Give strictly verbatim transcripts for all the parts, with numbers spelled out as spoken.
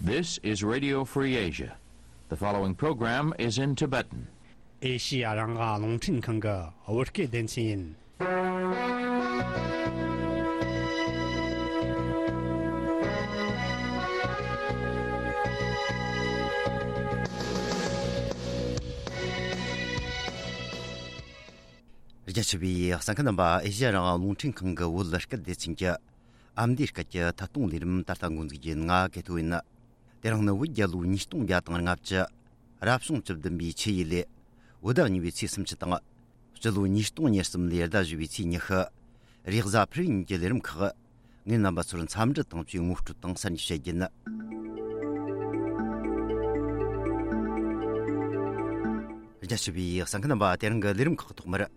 This is Radio Free Asia. The following program is in Tibetan. ཨེ་ཤི་ཡ་རང་དབང་རླུང་འཕྲིན་ཁང་གི་བོད་སྐད་སྡེ་ཚན་ཡིན། རྒྱ་ཆེ་བའི་གསན་མཁན་རྣམ་པ། ཨེ་ཤི་ཡ་རང་དབང་རླུང་འཕྲིན་ཁང་གི་བོད་སྐད་སྡེ་ཚན་གྱི་ཨ་མདོའི་སྐད་ཀྱི་ཐད་གཏོང་ལས་རིམ་ད་ལྟ་འགོ་འཛུགས་རྒྱུ་ཡིན། ང་གེ་ཐོ་ཡིན། དེ་རིང་ནི་བོད་རྒྱལ་ལོ་ཉིས་སྟོང་བརྒྱ་དང་ལྔ་བཅུ། རབ་བྱུང་བཅུ་བདུན་པའི་ཆུ་ཡོས་ལོའི་བོད་ཟླ་གཉིས་པའི་ཚེས་སུམ་ཅུ་དང་། སྤྱི་ལོ་ཉིས་སྟོང་ཉེར་གསུམ་ལོའི་ཟླ་བཞི་པའི་ཚེས་ཉི་ཤུ། རེས་གཟའ་ཕུར་བུ་ཉིན་གྱི་ལས་རིམ་ཁག་ངས་རྣམ་པ་ཚོར་འཚམས་འདྲི་དང་བཅས་ངོ་སྤྲོད་དང་གསར་འགྱུར་བཤད་རྒྱུ་ཡིན། རྒྱ་ཆེ་བའི་གསན་མཁན་རྣམ་པ། དེ་རིང་གི་ལས་རིམ་ཁག་ཐོག་མར།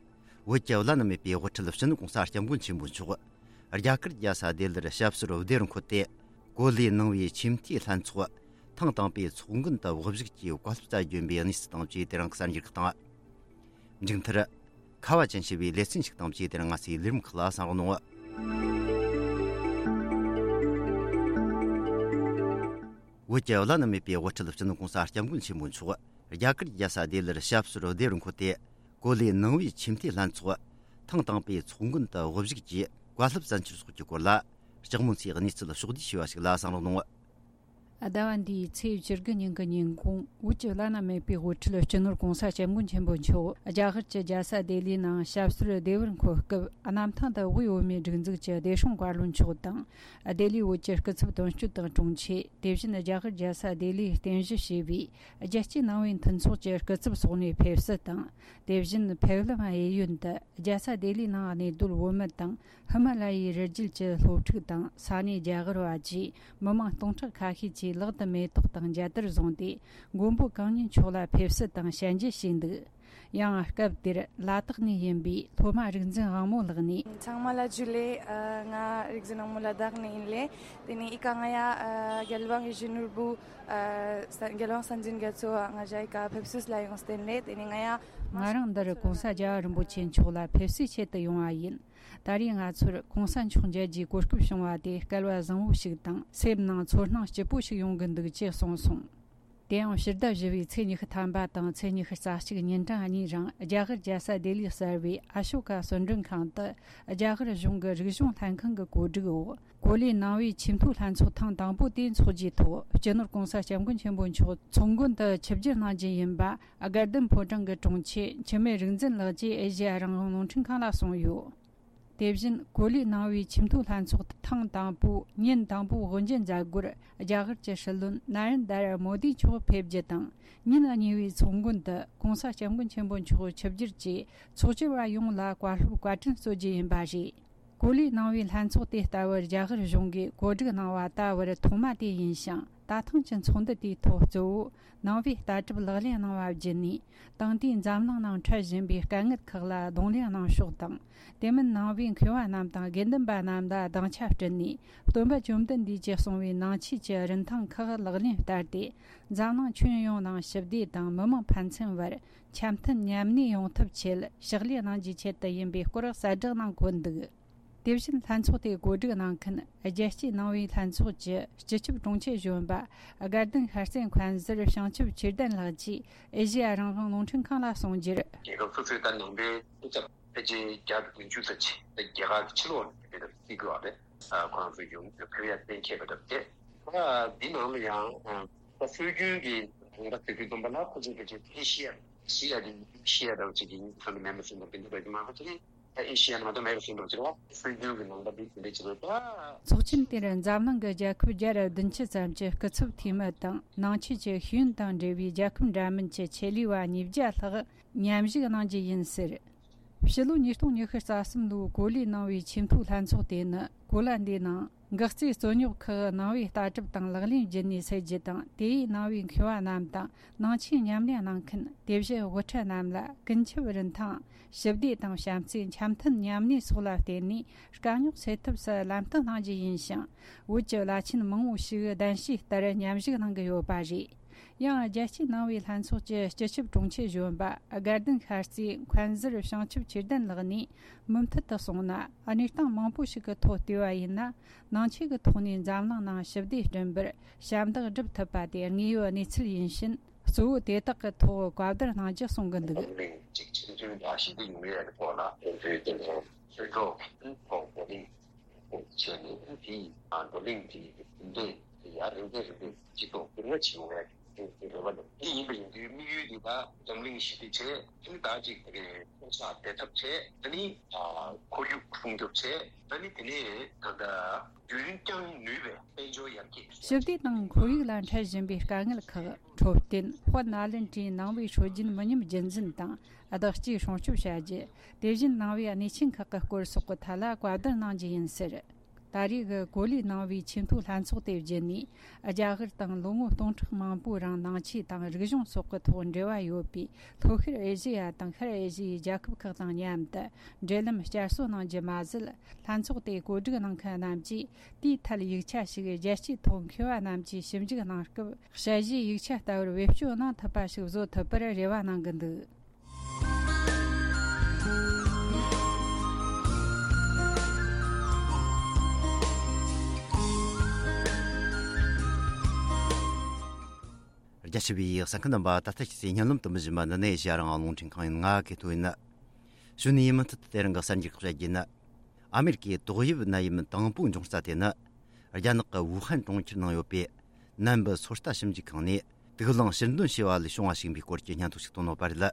བོད་ཀྱི་བླ་ན་མེད་པའི་དབུ་ཁྲིད་སྤྱི་ནོར་༸གོང་ས་༸སྐྱབས་མགོན་ཆེན་པོ་མཆོག་རྒྱ་གར་རྒྱལ་ས་ལྡི་ལིར་ཞབས་སོར་བདེ་བར་འཁོད་དེ། གོ་ལའི་ནང་པའི་ཆེས་མཐོའི་ལྷན་ཚོགས་ཐེངས་དང་པོའི་ཚོགས་མགོན་དུ་དབུ་བཞུགས་ཀྱིས་བཀའ་སློབ་སྩལ་རྒྱུ་ཡིན་པའི་གནས་ཚུལ་དང་བཅས་དེ་རིང་གི་གསར་འགྱུར་ཁག་དང་། མཇུག་མཐར། ཁ་བ་ཅན་ཞེས་པའི་ལེ་ཚན་ཞིག་དང་བཅས་དེ་རིང་ང་ཚོའི་ལས་རིམ་ཁག་ལ་གསན་རོགས་གནང་། བོད་ཀྱི་བླ་ན་མེད་པའི་དབུ་ཁྲིད་སྤྱི་ནོར་༸གོང་ས་༸སྐྱབས་མགོན་ཆེན་པོ་མཆོག་རྒྱ་གར་རྒྱལ་ས་ལྡི་ལིར་ཞབས་སོར་བདེ་བར་འཁོད་དེ། གོ་ལའི་ནང་པའི་ཆེས་མཐོའི་ལྷན་ཚོགས་ཐེངས་དང་པོའི་ཚོགས་མགོན་དུ་དབུ་བཞུགས་ཀྱིས་བཀའ་སློབ་སྩལ་འཆར་སོགས་ཀྱི་སྐོར་ལ། ལྕགས་མོ་མཚོས་གནས་ཚུལ་ཕྱོགས་བསྡུས་ཞུས་པ་ཞིག་ལ་གསན་རོགས་གནང་། ཟླ་བ་འདིའི་ཚེས་བཅུ་དགུ་ཉིན་གྱི་ཉིན་གུང་། བོད་ཀྱི་བླ་ན་མེད་པའི་དབུ་ཁྲིད་སྤྱི་ནོར་༸གོང་ས་༸སྐྱབས་མགོན་ཆེན་པོ་མཆོག་རྒྱ་གར་གྱི་རྒྱལ་ས་ལྡི་ལིའི་ནང་ཞབས་སོར་བདེ་བར་འཁོད་སྐབས། གནམ་ཐང་དུ་དབུས་བོད་མིའི་སྒྲིག་འཛུགས་ཀྱི་བདེ་སྲུང་བཀའ་བློན་མཆོག་དང་། ལྡི་ལིའི་བོད་ཀྱི་སྐུ་ཚབ་དོན་གཅོད་དང་དྲུང་ཆེ། དེ་བཞིན་རྒྱ་གར་རྒྱལ་ས་ལྡི་ལིའི་རྟེན་གཞི་བྱས་པའི་རྒྱལ་སྤྱིའི་ནང་པའི་མཐུན་ཚོགས་ཀྱི་སྐུ་ཚབ་སོགས་ནས་ཕེབས་བསུ་དང་། དེ་བཞིན་ཕེབས་ལམ་གཡས་གཡོན་དུ་རྒྱལ་ས་ལྡི་ལིའི་ནང་གནས་སྡོད་བོད་མི་དང་། ཧི་མ་ལ་ཡའི་རི་རྒྱུད་ཀྱི་སློབ་ཕྲུག་དང་། ས་གནས་རྒྱ་གར་བ་བཅས་མི་མང་སྟོང་ཕྲག་ཁ་ཤས་ཀྱིས་ལག་ཏུ་མེ་ཏོག་དང་མཇལ་དར་བཟུང་སྟེ། མགོན་པོ་གང་ཉིད་མཆོག་ལ་ཕེབས་བསུ་དང་ཞལ་འཇལ་བྱས་འདུག། ཡང་སྐབས་དེར་ལ་དྭགས་ནས་ཡིན་པའི་སློབ་མ་རིག་འཛིན་དབང་མོ་ལགས་ནས། ཚང་མ་ལ་ཇུ་ལེ། ཨ། ང་རིག་འཛིན་དབང་མོ་ལ་དྭགས་ནས་ཡིན་ལེ། དེ་ནས་ཨི་ཀ་ང་ཡ། ཨ། རྒྱལ་དབང་ཡིད་བཞིན་ནོར་བུ། ཨ། ས། རྒྱལ་དབང་སྲིད་འཛིན་རྒྱ་མཚོ་ང་ཞ་ཨི་ཀ་ཕེབས་བསུ་ལ་ཡོང་བསྟན་ལེ། དེ་ནས་ང་ཡ། ང་རང་འདིར་༸གོང་ས་རྒྱལ་བ་རིན་པོ་ཆེ་མཆོག་ལ་ཕེབས་བསུའི་ཆེད་དུ་ཡོང་བ་ཡིན། ད་རེས་ང་ཚོར་༸གོང་ས་མཆོག་མཇལ་རྒྱུའི་གོ་སྐབས་བྱུང་བ་དེ་སྐལ་བ་བཟང་བོ་ཞིག་དང་། སེམས་ནང་ཚོར་སྣང་སྐྱིད་པོ་ཞིག་ཡོང་གི་འདུག་ཅེས་གསུངས་སོང་། དེ་ཡང་ཕྱི་ཟླ་བཞི་པའི་ཚེས་ཉི་ཤུ་ཐམ་པ་དང་ཚེས་ཉི་ཤུ་རྩ་གཅིག་ཉིན་གྲངས་གཉིས་རིང་རྒྱ་གར་རྒྱལ་ས་ལྡི་ལི་གསར་བའི་ཨ་ཤོ་ཀ་གསོལ་མགྲོན་ཁང་དུ། རྒྱ་གར་གཞུང་གི་རིག་གཞུང་ལྷན་ཁང་གི་གོ་སྒྲིག་འོག་གོ་ལའི་ནང་པའི་ཆེས་མཐོའི་ལྷན་ཚོགས་ཐེངས་དང་པོ་དེ་འཚོགས་རྒྱུའི་ཐོག་སྤྱི་ནོར་༸གོང་ས་༸སྐྱབས་མགོན་ཆེན་པོ་མཆོག་ཚོགས་མགོན་དུ་ཆིབས་བསྒྱུར་གནང་རྒྱུ་ཡིན་པ། དགའ་ལྡན་ཕོ་བྲང་གི་དྲུང་ཆེ་འཆི་མེད་རིག་འཛིན་ལགས་ཀྱིས་ཨེ་ཤེ་ཡ་རང་དབང་རླུང་འཕྲིན་ཁང་ལ་གསུངས་ཡོད། དེ་བཞིན་གོ་ལའི་ནང་པའི་ཆེས་མཐོའི་ལྷན་ཚོགས་ཐེངས་དང་པོའི་ཉིན་དང་པོའི་དབུ་འབྱེད་མཛད་སྒོར། རྒྱ་གར་གྱི་སྲིད་བློན་ན་རེན་དར་མོ་དི་མཆོག་ཕེབས་རྒྱུ་དང་། ཉིན་གཉིས་པའི་ཚོགས་མགོན་དུ་༸གོང་ས་༸སྐྱབས་མགོན་ཆེན་པོ་མཆོག་ཆིབས་བསྒྱུར་གྱིས་ཚོགས་བཅར་བ་ཡོངས་ལ་བཀའ་སློབ་བཀའ་དྲིན་སྩོལ་རྒྱུ་ཡིན་པ་རེད། གོ་ལའི་ནང་པའི་ལྷན་ཚོགས་དེ་ལྟ་བུར་རྒྱ་གར་གཞུང་གིས་གོ་སྒྲིག་གནང་བ་ད་བར་ཐོག་མ་དེ་ཡིན་ཞིང་། ད་ཐེངས་ཀྱི་ཚོགས་འདུ་དེའི་ཐོག་གཙོ་བོ་ནང་པའི་ལྟ་གྲུབ་ལག་ལེན་གནང་བ་བརྒྱུད་ནས། དེང་དུས་འཛམ་གླིང་ནང་འཕྲད་བཞིན་པའི་དཀའ་ངལ་ཁག་ལ་གདོང་ལེན་གནང་ཕྱོགས་དང་། དེ་མིན་ནང་པའི་མཁས་པ་རྣམས་དང་དགེ་འདུན་པ་རྣམས་ལ་སྡིངས་ཆ་བསྐྲུན་ནས། སྟོན་པ་བཅོམ་ལྡན་འདས་ཀྱིས་གསུངས་པའི་ནང་ཆོས་ཀྱི་རིན་ཐང་ཁག་ལག་ལེན་བསྟར་ཏེ། འཛམ་གླིང་ཁྱོན་ཡོངས་ནང་ཞི་བདེ་དང་མི་མང་ཕན་ཚུན་བར་འཆམ་མཐུན་མཉམ་གནས་ཡོང་ཐབས་ཆེད་ཕྱག་ལས་གནང་རྒྱུའི་ཆེད་དུ་ཡིན་པའི་སྐོར་གསལ་བསྒྲགས་གནང་གོ་འདུག། དེ་བཞིན་ལྷན་ཚོགས་དེ་གོ་སྒྲིག་གནང་མཁན་རྒྱལ་སྤྱིའི་ནང་པའི་ལྷན་ཚོགས་ཀྱི་སྤྱི་ཁྱབ་དྲུང་ཆེ་གཞོན་པ་དགའ་ལྡན་ཤར་རྩེ་མཁན་ཟུར་བྱང་ཆུབ་ཆོས་ལྡན་ལགས་ཀྱིས་ཨེ་ཤེ་ཡ་རང་དབང་རླུང་འཕྲིན་ཁང་ལ་གསུངས་རྒྱུར། རྒྱལ་ཁབ་སོ་སོའི་ད་ནང་པའི་སྐུ་ཚབ་ཕལ་ཆེར་བརྒྱ་དང་བདུན་ཅུ་ཙམ་ཅིག་ད་རྒྱ་གར་གྱི་ཕྱི་ལོགས་ནས་ཕེབས་པ་རེད་ཟེར་གྱི་ཡོད་རེད། ཁོ་རང་ཚོ་ཡོང་ཕེབས་ཡ་གཏན་འཁེལ་བ་འདྲ་པོ་རེད། ད་འདི་ནང་ལ་ཡང་ད་སྲོལ་རྒྱུན་གྱི་ནང་པ་དེ་ཚོའི་སྟོན་པ་ལ་ཁོ་ཚོས་ཕལ་ཆེར་ཨེ་ཤེ་ཡ། ཨེ་ཤེ་ཡ་དེ་ཨེ་ཤེ་ཡ་འདྲ་བོ་ཅིག་གི་ཚང་གི་མེད་མ་ཟིན་པ་དེ་འདྲ་འདྲ་གི་མང་པོ་ཅིག་རེད། ཨེ་ཤེ་ཡ་ནང་དུ་མེད་པ་ཟིན་པ་ཅིག་རེད་བ། སྲོལ་རྒྱུན་གྱི་ནང་པ་འདི་དེ་འདྲ་ཅིག་རེད་བ། ཚོགས་ཆེན་དེར་འཛམ་གླིང་གི་རྒྱལ་ཁབ་བརྒྱ་དང་བདུན་ཅུ་ཙམ་གྱི་སྐུ་ཚབ་འཐུས་མི་དང་། ནང་ཆོས་ཀྱི་ཤེས་ཡོན་དང་འབྲེལ་བའི་རྒྱལ་ཁབ་འདྲ་མིན་གྱི་ཆེད་ལས་པ་ཉིས་བརྒྱ་ལྷག་མཉམ་ཞུགས་གནང་རྒྱུ་ཡིན་ཟེར། ཕྱི་ལོ་ཉིས་སྟོང་ཉི་ཤུ་རྩ་གསུམ་ལོའི་གོ་ལའི་ནང་པའི་ཆེས་མཐོའི་ལྷན་ཚོགས་དེ་ནི། གོ་ལ་འདིའི་ནང་འགག་རྩའི་རྩོད་རྙོག་ཁག་ནང་པའི་ལྟ་གྲུབ་དང་ལག་ལེན་བརྒྱུད་ནས་སེལ་རྒྱུ་དང་། དེ་ཡིས་ནང་པའི་མཁས་པ་རྣམས་དང་ནང་ཆོས་ཉམས་ལེན་གནང་མཁན། དེ་བཞིན་དབུ་ཁྲིད་རྣམས་ལ་ཀུན་ཁྱབ་རིན་ཐང་། ཞི་བདེ་དང་བྱམས་བརྩེ། འཆམ་མཐུན་མཉམ་གནས་སོགས་ལ་བརྟེན་ནས་དཀའ་རྙོག་སེལ་ཐབས་སུ་ལམ་སྟོན་གནང་རྒྱུ་ཡིན་ཞིང་། བོད་ཀྱི་བླ་ཆེན་མང་བོ་ཞིག་གདན་ཞུས་ལྟར་མཉམ་ཞུགས་གནང་གི་ཡོད་པ་རེད། ཡང་རྒྱལ་སྤྱིའི་ནང་པའི་ལྷན་ཚོགས་ཀྱི་སྤྱི་ཁྱབ་དྲུང་ཆེ་གཞོན་པ་དགའ་ལྡན་ཤར་རྩེའི་མཁན་ཟུར་བྱང་ཆུབ་ཆོས་ལྡན་ལགས་ནས། མུ་མཐུད་དུ་སོང་ན། གནས་སྟངས་མང་པོ་ཞིག་གི་ཐོག་བལྟས་པ་ཡིན་ན། ནང་ཆོས་ཀྱི་ཐོག་ནས་འཛམ་གླིང་ནང་ཞི་བདེ་བསྐྲུན་པར་ཞབས་འདེགས་སྒྲུབ་ཐུབ་པ་དེ་དངོས་ཡོད་གནས་ཚུལ་ཡིན་ཕྱིན། གཙོ་བོ་དེ་དག་གི་ཐོག་བཀའ་བསྡུར་གནང་རྒྱུ་གསུང་གི་འདུག། འཛམ་གླིང་གཅིག་ཆེན་མཐུན་དང་ཞི་བདེ་ཡོང་ཡས་ཀྱི་ཐོག་ལ་དེ་ཚོའི་སྟེང་དུ་ཆོས་གྲོགས་ཐོག་བགྲོ་གླེང་བྱས་ནས། དེའི་བགྲོ་གླེང་དེའི་འབྲེལ་ཡ་རིམ་པས་རིམ་པས་སྤྱི་ཚོགས་བསྡུར་ན་བྱེད་འོང་ཡ་དེ་རེ་བ་འདུག། དེ་ཡིན་པ་ཡིན་དུས་དམིགས་ཡུལ་འདི་ད་འཛམ་གླིང་ཞི་བདེ་བྱས། དེ་ནི་ད་ཅིག་དེ་གའི་ཕོ་གསར་བདེ་ཐབས་བྱས། དེ་ནི་ཁོར་ཡུག་སྲུང་སྐྱོབ་བྱས། དེ་ནི་དེ་ནས་ད་ལྟ་རྒྱུན་བསྐྱངས་ནུས་པའི་དཔལ་འབྱོར་ཡར་རྒྱས། ཞི་བདེ་དང་ཁོར་ཡུག་ལ་འཕྲད་བཞིན་པའི་དཀའ་ངལ་ཁག་འཕྲོད་བསྟེན། དཔལ་ནཱ་ལེནྡྲའི་ནང་པའི་སྲོལ་རྒྱུན་མི་ཉམས་རྒྱུན་འཛིན་དང་བདག་གཅེས་སྲུང་སྐྱོབ་བྱ་རྒྱུ། དེ་བཞིན་ནང་པའི་གནས་ཆེན་ཁག་གི་སྐོར་སོགས་ཀྱི་ཐད་ལ་བཀའ་བསྡུར་གནང་རྒྱུ་ཡིན་ཟེར། ད་རེས་ཀྱི་གོ་ལའི་ནང་པའི་ཆེས་མཐོའི་ལྷན་ཚོགས་དེ་བརྒྱུད་ནས། རྒྱ་གར་དང་ལོ་ངོ་སྟོང་ཕྲག་མང་པོའི་རིང་ནང་ཆོས་དང་རིག་གཞུང་སོགས་ཀྱི་ཐོག་འབྲེལ་བ་ཡོད་པའི་ལྷོ་ཤར་ཨེ་ཤེ་ཡ་དང་ཤར་ཨེ་ཤེ་ཡའི་རྒྱལ་ཁབ་ཁག་དང་མཉམ་དུ་འབྲེལ་ལམ་བསྐྱར་གསོ་གནང་རྒྱུ་མ་ཟད། ལྷན་ཚོགས་དེ་གོ་སྒྲིག་གནང་མཁན་རྣམས་ཀྱིས་དེའི་ཐད་ཡིག་ཆ་ཞིག་རྒྱལ་སྤྱིའི་ཐོག་མཁས་པ་རྣམས་ཀྱིས་ཞིབ་འཇུག་གནང་སྐབས། དཔྱད་གཞིའི་ཡིག་ཆ་ལྟ་བུར་བེད་སྤྱོད་གནང་ཐུབ་པ་ཞིག་བཟོ་ཐུབ་པར་རེ་བ་གནང་གི་འདུག། རྒྱ་ཆེ་བའི་གསན་མཁན་རྣམ་པ། ད་ལྟ་ཁྱེད་ཚོས་སྙན་ལམ་དུ་མི་ཞུ་མ་འདི་ནས་ཨེ་ཤེ་ཡ་རང་དབང་རླུང་འཕྲིན་ཁང་ཡིན། ང་གི་ཐོ་ཡིན། ཞུ་ནས་མུ་མཐུད་དུ་དེ་རིང་གི་གསར་འགྱུར་ཁག་བཤད་རྒྱུ་ཡིན། ཨ་མེ་རི་ཀའི་ཏོག་དབྱིབས་ནད་ཡམས་དང་པོ་འབྱུང་ས་དེ་ནི། རྒྱ་ནག་གི་ཝུ་ཧན་གྲོང་ཁྱེར་ནང་ཡོད་པའི་ནན་པི་སོ་ལྟ་ཞིབ་འཇུག་ཁང་ནས་དུག་རླངས་ཕྱིར་འདོན་བྱས་པ་ལས་བྱུང་བ་ཞིག་ཡིན་པའི་སྐོར་གྱི་སྙན་ཐོ་ཞིག་བཏོན་ཡོད་པ་རེད།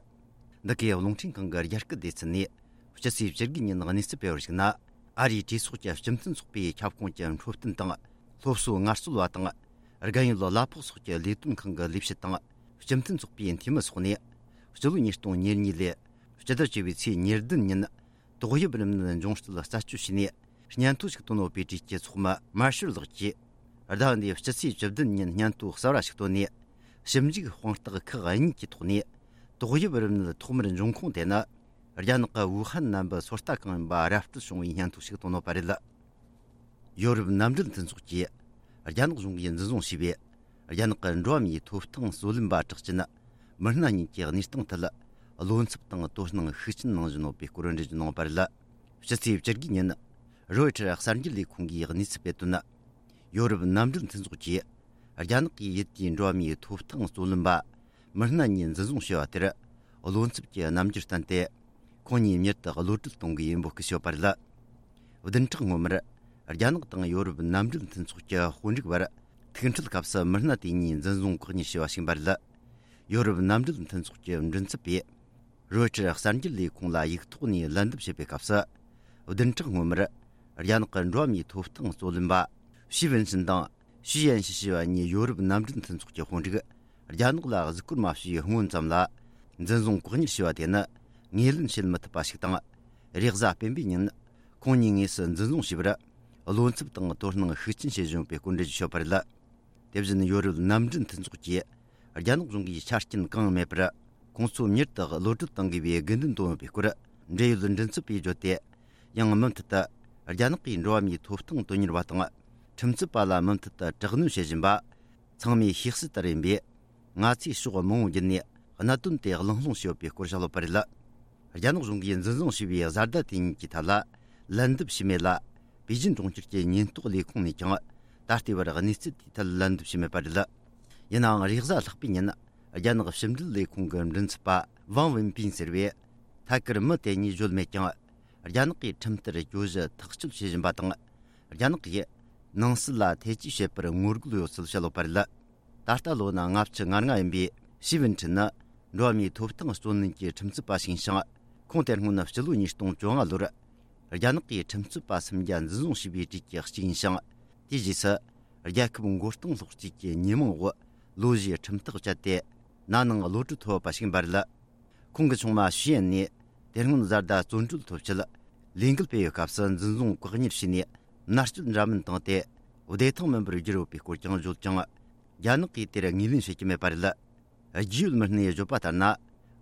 འདི་གའི་རླུང་འཕྲིན་ཁང་གི་རྒྱ་སྐད་སྡེ་ཚན་ནས་སྤྱི་ཚེས་བཅུ་དགུ་ཉིན་གནས་ཚུལ་སྤེལ་བར་གཞིགས་ན། ཨ་རིའི་གྲོས་ཚོགས་ཀྱི་སྤྱི་མཐུན་ཚོགས་པའི་ཁྱབ་ཁོངས་ཀྱི་འཕྲོད་བསྟེན་དང་སློབ་གསོའི་ངལ་རྩོལ་བ་དང་། རྒན་ཡོལ་གླ་ཕོགས་སོགས་ཀྱི་ལས་དོན་ཁང་གི་ལས་བྱེད་དང་། སྤྱི་མཐུན་ཚོགས་པའི་འཐུས་མི་སོགས་ནས། སྤྱི་ལོ་ཉིས་སྟོང་ཉེར་གཉིས་ལོའི་སྤྱི་ཟླ་བཅུ་པའི་ཚེས་ཉེར་བདུན་ཉིན། ཏོག་དབྱིབས་རིམས་ནད་འབྱུང་རྩིས་རྩད་གཅོད་བྱས་ནས། སྙན་ཐོ་ཞིག་བཏོན་ཡོད་པའི་གྲས་ཀྱི་ཚོགས་མི་མར་ཤལ་ལགས་ཀྱིས། ཟླ་འདིའི་སྤྱི་ཚེས་བཅུ་བདུན་ཉིན་སྙན་ཐོ་གསར་བ་ཞིག་བཏོན་ནས། ཞིབ་འཇུག་དཔང་རྟགས་ཁག་གཉིས་ཀྱི་ཐོག་ནས། ཏོག་དབྱིབས་རིམས་ནད་ཐོག་མར་འབྱུང་ཁུངས་དེ་ནི། རྒྱ་ནག་གི་ཝུ་ཧན་ནན་པི་སོ་ལྟ་ཁང་ཡིན་པ་ར་སྤྲོད་བྱུང་བའི་སྙན་ཐོ་ཞིག་བཏོན་ཡོད་པ་རེད། ཡོ་རོབ་མནའ་འབྲེལ་མཐུན་ཚོགས་ཀྱིས། རྒྱ་ནག་གཞུང་གིས་འཛིན་བཟུང་བྱས་པའི། རྒྱ་ནག་གི་འགྲོ་བ་མིའི་ཐོབ་ཐང་རྩོད་ལེན་པ་གྲགས་ཅན། མི་སྣ་གཉིས་ཀྱི་གནས་སྟངས་ཐད། བློ་འཚབ་དང་དོ་སྣང་ཤུགས་ཆེན་གནང་བཞིན་ཡོད་པའི་སྐོར་འགྲེལ་བརྗོད་གནང་བ་རེད། སྤྱི་ཚེས་བཅུ་དགུ་ཉིན། རོའི་ཊར་གསར་འགྱུར་ལས་ཁུངས་ཀྱིས་གནས་ཚུལ་སྤེལ་དོན། ཡོ་རོབ་མནའ་འབྲེལ་མཐུན་ཚོགས་ཀྱིས། རྒྱ་ནག་གིས་ཡུལ་དེའི་འགྲོ་བ་མིའི་ཐོབ་ཐང་རྩོད་ལེན་པ། མི་སྣ་གཉིས་འཛིན་བཟུང་བྱས་པ་དེར། བློ་འཚབ་ཀྱི་རྣམ་འགྱུར་བསྟན་ཏེ། ཁོང་གཉིས་མྱུར་དུ་གློད་གྲོལ་གཏོང་དགོས་པའི་འབོད་སྐུལ་བྱས་པ་རེད། བདུན་ཕྲག་སྔོན་མར། རྒྱ་ནག་དང་ཡོ་རོབ་མནའ་འབྲེལ་མཐུན་ཚོགས་ཀྱི་དཔོན་རིགས་བར། ཐུག་འཕྲད་སྐབས་སུ་མི་སྣ་དེ་གཉིས་འཛིན་བཟུང་བཀག་ཉར་བྱས་པ་ཞིག་ཡིན་པ་རེད། ཡོ་རོབ་མནའ་འབྲེལ་མཐུན་ཚོགས་ཀྱི་མགྲིན་ཚབ་པས། རོའི་ཊར་གསར་འགྱུར་ལས་ཁུངས་ལ་ཡིག་ཐོག་ནས་ལན་འདེབས་བྱས་པའི་སྐབས་སུ། བདུན་ཕྲག་སྔོན་མར། རྒྱ་ནག་གི་འགྲོ་བ་མིའི་ཐོབ་ཐང་རྩོད་ལེན་པ། ཞི་ཝུན་ཆིན་དང་། ཞུ་ཡན་ཞི་ཞེས་པ་གཉིས་ཡོ་རོབ་མནའ་འབྲེལ་མཐུན་ཚོགས་ཀྱི་དཔོན་རིགས། རྒྱ་ནག་ལ་གཟིགས་སྐོར་མ་བྱས་སྔོན་ཙམ་ལ། འཛིན་བཟུང་བཀག་ཉར་བྱས་པ་དེ་ནི། ངོས་ལེན་བྱེད་མི་ཐུབ་པ་ཞིག་དང་། རེས་གཟའ་སྤེན་པའི་ཉིན། ཁོང་གཉིས་དངོས་སུ་འཛིན་བཟུང་བྱས་པར། བློ་འཚབ་དང་དོ་སྣང་ཤུགས་ཆེན་བྱེད་བཞིན་ཡོད་པའི་སྐོར་འགྲེལ་བརྗོད་བྱས་པ་རེད། དེ་བཞིན་ཡོ་རོབ་མནའ་འབྲེལ་མཐུན་ཚོགས་ཀྱིས། རྒྱ་ནག་གཞུང་གིས་ཆ་རྐྱེན་གང་ཡང་མེད་པར། ཁོང་ཚོ་མྱུར་དུ་གློད་གྲོལ་གཏང་དགོས་པའི་དགོས་འདུན་བཏོན་ཡོད་པའི་སྐོར། འབྲེལ་ཡོད་མགྲིན་ཚབ་པས་བརྗོད་དེ། ཡང་མུ་མཐུད་དུ། རྒྱ་ནག་གིས་འགྲོ་བ་མིའི་ཐོབ་ཐང་དོན་གཉེར་བ་དང་། ཁྲིམས་རྩོད་པ་ལ་མུ་མཐུད་དུ་དྲག་གནོན་བྱེད་བཞིན་པ། ཚང་མས་ཤེས་གསལ་ལྟར་ཡིན་པས། ང་ཚོས་ཕྱོགས་མང་པོ་བརྒྱུད་ནས། གནད་དོན་དེ་གླེང་སློང་བྱས་ཡོད་པའི་སྐོར་བཤད་ཡོད་པ་རེད། རྒྱ་ནག་གཞུང་གིས་འཛིན་བཟུང་བྱས་པའི་བཟའ་ཟླ་དེ་གཉིས་ཀྱི་ཐད་ལ། ལན་འདེབས་བྱས་མེད་ལ། པེ་ཅིན་གྲོང་ཁྱེར་གྱི་ཉེན་རྟོག་ལས་ཁུངས་ནས་ཀྱང་། ད་ལྟའི་བར་གནས་ཚུལ་དེའི་ཐད་ལན་འདེབས་བྱས་མེད་པ་རེད། ཡིན་ནའང་། རེས་གཟའ་ལྷག་པའི་ཉིན། རྒྱ་ནག་ཕྱི་འབྲེལ་ལས་ཁུངས་ཀྱི་མགྲིན་ཚབ་པ། ཝང་ཝིན་པིན་ཟེར་བས། ཐད་ཀར་མི་དེ་གཉིས་བརྗོད་མེད་ཀྱང་། རྒྱ་ནག་གིས་ཁྲིམས་ལྟར་གྱོད་གཞི་ཐག་གཅོད་བྱེད་བཞིན་པ་དང་། རྒྱ་ནག་གིས་ནང་སྲིད་ལ་ཐེ་ཇུས་བྱེད་པར་ངོ་རྒོལ་ཡོད་ཚུལ་བཤད་ཡོད་པ་རེད། ད་ལྟ་ལོ་ན་ལྔ་བཅུ་ང་ལྔ་ཡིན་པའི་ཞི་ཝུན་ཁྲིན་ནི། འགྲོ་བ་མིའི་ཐོབ་ཐང་རྩོད་ལེན་གྱི་ཁྲིམས་རྩོད་པ་ཞིག་ཡིན་ཞིང་། ཁོང་དེ་སྔོན་སྤྱི་ལོ་ཉིས་སྟོང་བཅོ་ལྔ་ལོར། རྒྱ་ནག་གིས་ཁྲིམས་རྩོད་པ་སུམ་བརྒྱ་འཛིན་བཟུང་བྱས་པའི་གྲས་ཀྱི་གཅིག་ཡིན་ཞིང་། དེའི་རྗེས་སུ། རྒྱལ་ཁབ་མགོ་རྟིང་སློག་རྩིས་ཀྱི་ཉེས་མིང་འོག་ལོ་བཞིའི་ཁྲིམས་ཐག་བཅད་དེ། ན་ནིང་གློད་གྲོལ་ཐོབ་པ་ཞིག་ཡིན་པ་རེད། ཁོང་གི་ཆུང་མ་ཞུ་ཡན་ནས། དེ་སྔོན་བཟའ་ཟླ་བཙོན་གྲོལ་ཐོབ་ཆེད། ལས་འགུལ་སྤེལ་བའི་སྐབས་སུ་འཛིན་བཟུང་བཀག་ཉར་བྱས་ནས། མནར་གཅོད་འདྲ་མིན་བཏང་སྟེ། བདེ་ཐང་མིན་པར་བསྒྱུར་ཡོད་པའི་སྐོར་ཀྱང་བརྗོད་ཀྱང་། རྒྱ་ནག་གིས་དེར་ངོས་ལེན་བྱེད་ཀྱི་མེད་པ་རེད། རྒྱུས་ཡོད་མི་སྣས་བརྗོད་པ་ལྟར་ན།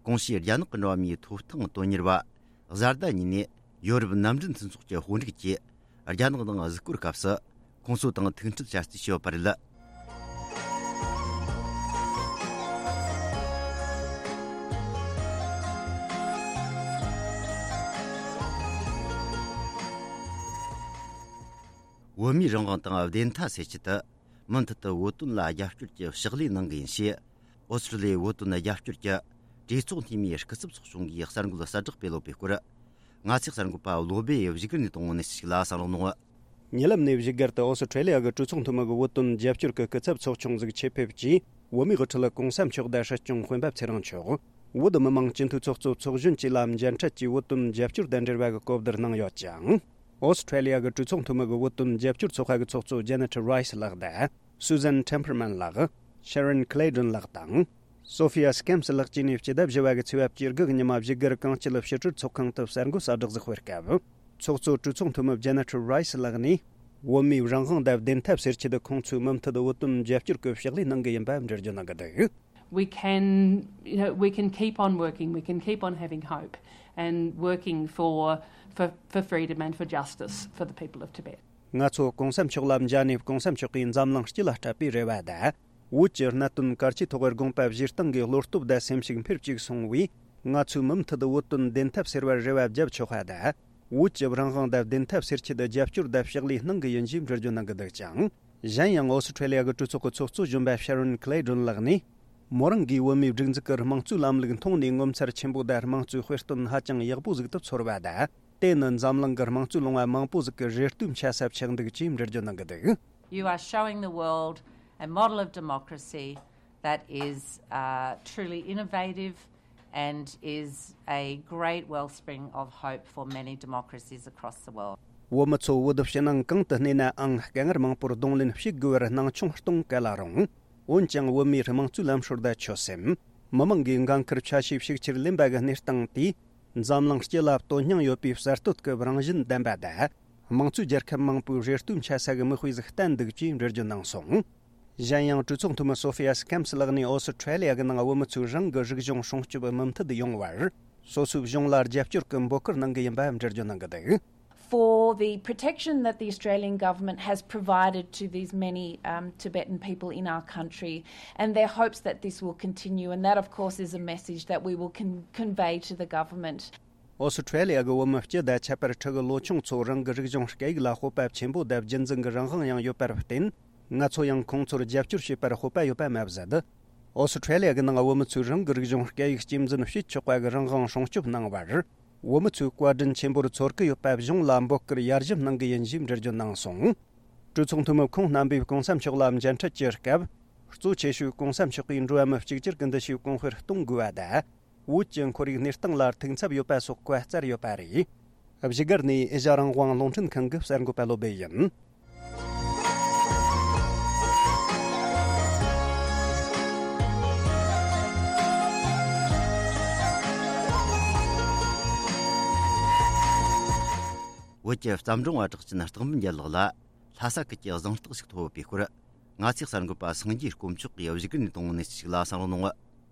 གོང་ཞུས་རྒྱ་ནག་གི་འགྲོ་བ་མིའི་ཐོབ་ཐང་དོན་གཉེར་བ། བཟའ་ཟླ་གཉིས་ནས་ཡོ་རོབ་མནའ་འབྲེལ་མཐུན་ཚོགས་ཀྱི་དཔོན་རིགས་ཀྱིས། རྒྱ་ནག་ནང་གཟིགས་སྐོར་སྐབས་སུ། ཁོང་ཚོ་དང་ཐུག་འཕྲད་བྱ་རྩིས་བྱས་ཡོད་པ་རེད། བོད་མིའི་རང་དབང་དང་བདེན་མཐའ་སེལ་ཆེད་དུ། མུ་མཐུད་དུ་བོད་དོན་ལ་རྒྱབ་སྐྱོར་གྱི་ཕྱག་ལས་གནང་གི་ཡིན་ཞེས། ཨོ་སི་ཀྲི་ལི་ཡའི་བོད་དོན་རྒྱབ་སྐྱོར་གྱི་གྲོས་ཚོགས་འཐུས་མིའི་སྐུ་ཚབ་ཚོགས་ཆུང་གིས་གསར་འགོད་གསལ་བསྒྲགས་སྤེལ་ཡོད་པའི་སྐོར། ང་ཚོའི་གསར་འགོད་པ་བློ་སྦེ་བཞུགས་སྒར་ནས་གཏོང་བའི་གནས་ཚུལ་ཞིག་ལ་གསན་རོགས་གནང་། ཉེ་ལམ་ནས་བཞུགས་སྒར་དུ་ཨོ་སི་ཀྲི་ལི་ཡ་གི་གྲོས་ཚོགས་འཐུས་མི་གི་བོད་དོན་རྒྱབ་སྐྱོར་གྱི་སྐུ་ཚབ་ཚོགས་ཆུང་ཟིག་ཆེད་ཕེབས་ཀྱིས། བོད་མིའི་དབུ་ཁྲིད་གོང་ས་མཆོག་དང་སྲིད་སྐྱོང་སྤེན་པ་ཚེ་རིང་མཆོག་བོད་མི་མང་སྤྱི་འཐུས་ཚོགས་གཙོ་ཚོགས་གཞོན་བཅས་ལ་མཇལ་འཕྲད་ཀྱིས་བོད་དོན་རྒྱབ་སྐྱོར་དང་འབྲེལ་བ་གི་གོ་བསྡུར་གནང་ཡོད་ཅིང་། ཨོ་སི་ཀྲི་ལི་ཡ་གི་གྲོས་ཚོགས་འཐུས་མི་གི་བོད་དོན་རྒྱབ་སྐྱོར་ཚོགས་པ་གི་ཚོགས་གཙོ་ཇེ་ནེ་ཊི་རའི་སི་ལགས་དང་། སུ་ཟན་ཊེམ་པར་མན་ལགས། ཤེ་རོན་ཁི་ལེ་ཌོན་ལགས་དང་། སོ་ཧྥི་ཡ་སི་ཀེམ་སི་ལགས་བཅས་ནས་སྤྱི་ཟླ་བཞི་བ་གི་ཚེས་པ་བཅུ་དགུ་གི་ཉི་མ་བཞུགས་སྒར་གངས་སྐྱིད་ཕྱི་དྲིལ་ཚོགས་ཁང་དུ་གསར་འགོད་གསལ་བསྒྲགས་ཟིག་སྤེལ་སྐབས། ཚོགས་གཙོ་གྲོས་ཚོགས་འཐུས་མི་ཇེ་ནེ་ཊི་རའི་སི་ལགས་ནས། བོད་མིའི་རང་དབང་དང་བདེན་མཐའ་སེལ་ཆེད་དུ་ཁོང་ཚོས་མུ་མཐུད་བོད་དོན་རྒྱབ་སྐྱོར་གྱི་ཕྱག་ལས་གནང་གི་ཡིན་པ་འགྲེལ་བརྗོད་གནང་གི་འདུག We can, you know, we can keep on working, we can keep on having hope and working for, for, for freedom and for justice for the people of Tibet. ང་ཚོ་གོང་ས་མཆོག་ལ་མཇལ་ནས་གོང་ས་མཆོག་གིས་འཛམ་གླིང་སྤྱི་ལ་སྤྲད་པའི་རེ་བ་དང་། བོད་ཀྱི་གནད་དོན་གལ་ཆེའི་ཐོག་དགོངས་པ་བཞེས་སྟངས་ཀྱི་བློ་སྟོབས་དང་སེམས་ཤུགས་འཕེལ་བཅུག་སོང་བས། ང་ཚོས་མུ་མཐུད་བོད་དོན་བདེན་མཐའ་སེལ་བར་རེ་བ་བརྒྱབ་ཆོག་པ་དང་། བོད་ཀྱི་རང་དབང་དང་བདེན་མཐའ་སེལ་ཆེད་རྒྱབ་སྐྱོར་དང་ཕྱག་ལས་གནང་གི་ཡིན་ཞེས་འགྲེལ་བརྗོད་གནང་གི་འདུག་ཅིང་། གཞན་ཡང་ཨོ་སི་ཁྲེ་ལི་ཡ་གི་གྲོས་ཚོགས་ཀྱི་ཚོགས་གཙོ་གཞོན་པ་ཤ་རོན་ཁི་ལེ་ཌོན་ལགས་ནས། མོ་རང་གིས་བོད་མིའི་སྒྲིག་འཛུགས་ཀྱི་དམངས་གཙོའི་ལམ་ལུགས་མཐོང་ནས་ངོ་མཚར་ཆེན་པོ་དང་དམངས་གཙོའི་དཔེ་སྟོན་ཧ་ཅང་ཡག་པོ་ཟིག་ཏུ་ཚོར་བ་དང་། དེ་ནི་འཛམ་གླིང་གི་དམངས་གཙོའི་ལུང་བ་མང་པོ་ཟིག་གི་རེ་ལྟོས་འཆའ་ས་ཆགས་འདུག་ཅེས་འགྲེལ་བརྗོད་གནང་གི་འདུག You are showing the world a model of democracy that is, uh, truly innovative and is a great wellspring of hope for many democracies across the world. བོད་མི་ཚོ་བོད་ཕྱི་ནང་གང་དུ་གནས་ནའང་དཀའ་ངལ་མང་པོར་གདོང་ལེན་བྱེད་དགོས་པར་སྣང་ཆུང་གཏོང་ག་ལ་རུང་། འོན་ཀྱང་བོད་མིའི་དམངས་གཙོའི་ལམ་སྲོལ་དང་ཆོད་སེམས། མི་མང་གིས་འགན་ཁུར་ཆ་ཤས་ཤུགས་ཆེར་ལེན་པ་གི་གནས་སྟངས་དེས། འཛམ་གླིང་སྤྱི་ལ་དོན་སྙིང་ཡོད་པའི་གསར་གཏོད་ཀྱི་རང་བཞིན་ལྡན་པ་དང་། དམངས་གཙོའི་རྒྱལ་ཁབ་མང་པོའི་རེ་ལྟོས་འཆའ་ས་གི་མིག་དཔེ་ཟིག་བསྟན་འདུག་ཅེས་འགྲེལ་བརྗོད་གནང་སོང་། གཞན་ཡང་གྲོས་ཚོགས་འཐུས་མི་སོ་ཧྥི་ཡ་སི་ཁེམ་སི་ལགས་ནས་ཨོ་སི་ཁྲེ་ལི་ཡ་གི་ནང་བོད་མི་ཚོས་རང་གི་རིག་གཞུང་སྲུང་སྐྱོབ་མུ་མཐུད་ཡོང་བར། སོ་སོའི་གཞུང་ལ་རྒྱབ་སྐྱོར་གྱི་འབོད་སྐུལ་གནང་གི་ཡིན་པ་འགྲེལ་བརྗོད་གནང་གི་འདུག For the protection that the Australian government has provided to these many, um, Tibetan people in our country and their hopes that this will continue, and that, of course, is a message that we will con- convey to the government. ཨོ་སི་ཁྲེ་ལི་ཡ་གི་བོད་མི་སྤྱི་དང་ཁྱད་པར་ཕྲུ་གུ་ལོ་ཆུང་ཚོ་རང་གི་རིག་གཞུང་སྐད་ཡིག་ལ་སྤོབས་པ་ཆེན་པོ་དང་རྒྱུན་འཛིན་གྱི་རང་དབང་ཡང་ཡོད་པར་བརྟེན། ང་ཚོ་ཡང་ཁོང་ཚོར་རྒྱབ་སྐྱོར་བྱེད་པར་སྤོབས་པ་ཡོད་པ་མ་ཟད། ཨོ་སི་ཁྲེ་ལི་ཡ་གི་ནང་བོད་མི་ཚོས་རང་གི་རིག་གཞུང་སྐད་ཡིག་གཅེས་འཛིན་བྱེད་ཆོག་པ་གི་རང་དབང་སྲུང་སྐྱོབ་གནང་བར། བོད་མི་ཚོས་བཀའ་དྲིན་ཆེན་པོར་ཚོར་གི་ཡོད་པ་གཞུང་ལ་འབོད་སྐུལ་ཡར་ཞུ་གནང་གི་ཡིན་ཞེས་འགྲེལ་བརྗོད་གནང་སོང་། གྲོས་ཚོགས་འཐུས་མི་ཁོང་རྣམ་པས་གོང་ས་མཆོག་ལ་མཇལ་འཕྲད་ཀྱི་སྐབས། གཙོ་ཆེ་ཤོས་གོང་ས་མཆོག་གིས་འགྲོ་བ་མི་གཅིག་གྱུར་གྱི་འདུ་ཤེས་གོང་འཕེལ་གཏོང་དགོས་པ་དང་། བོད་ཀྱི་ཁོར་ཡུག་གནས་སྟངས་ལ་ཐུགས་འཚབ་ཡོད་པ་སོགས་བཀའ་སྩལ་ཡོད་པ་རེད། བཞུགས་སྒར་ནས་ཨེ་ཤ་རང་དབང་རླུང་འཕྲིན་ཁང་གི་གསར་འགོད་པ་བློ་སྦེ་ཡིན། བོད་ཀྱི་བརྩམས་སྒྲུང་བ་གྲགས་ཅན་སྟག་འབུམ་རྒྱལ་ལགས་ལ་ལྷ་ས་ཁུལ་གྱི་གཟེངས་རྟགས་ཤིག་ཐོབ་ཡོད་པའི་སྐོར། ང་ཚོའི་གསར་འགོད་པ་སངས་རྒྱས་དཀོན་མཆོག་གིས་བཞུགས་སྒར་ནས་བཏང་བའི་གནས་ཚུལ་ཞིག་ལ་གསན་རོགས་གནང་།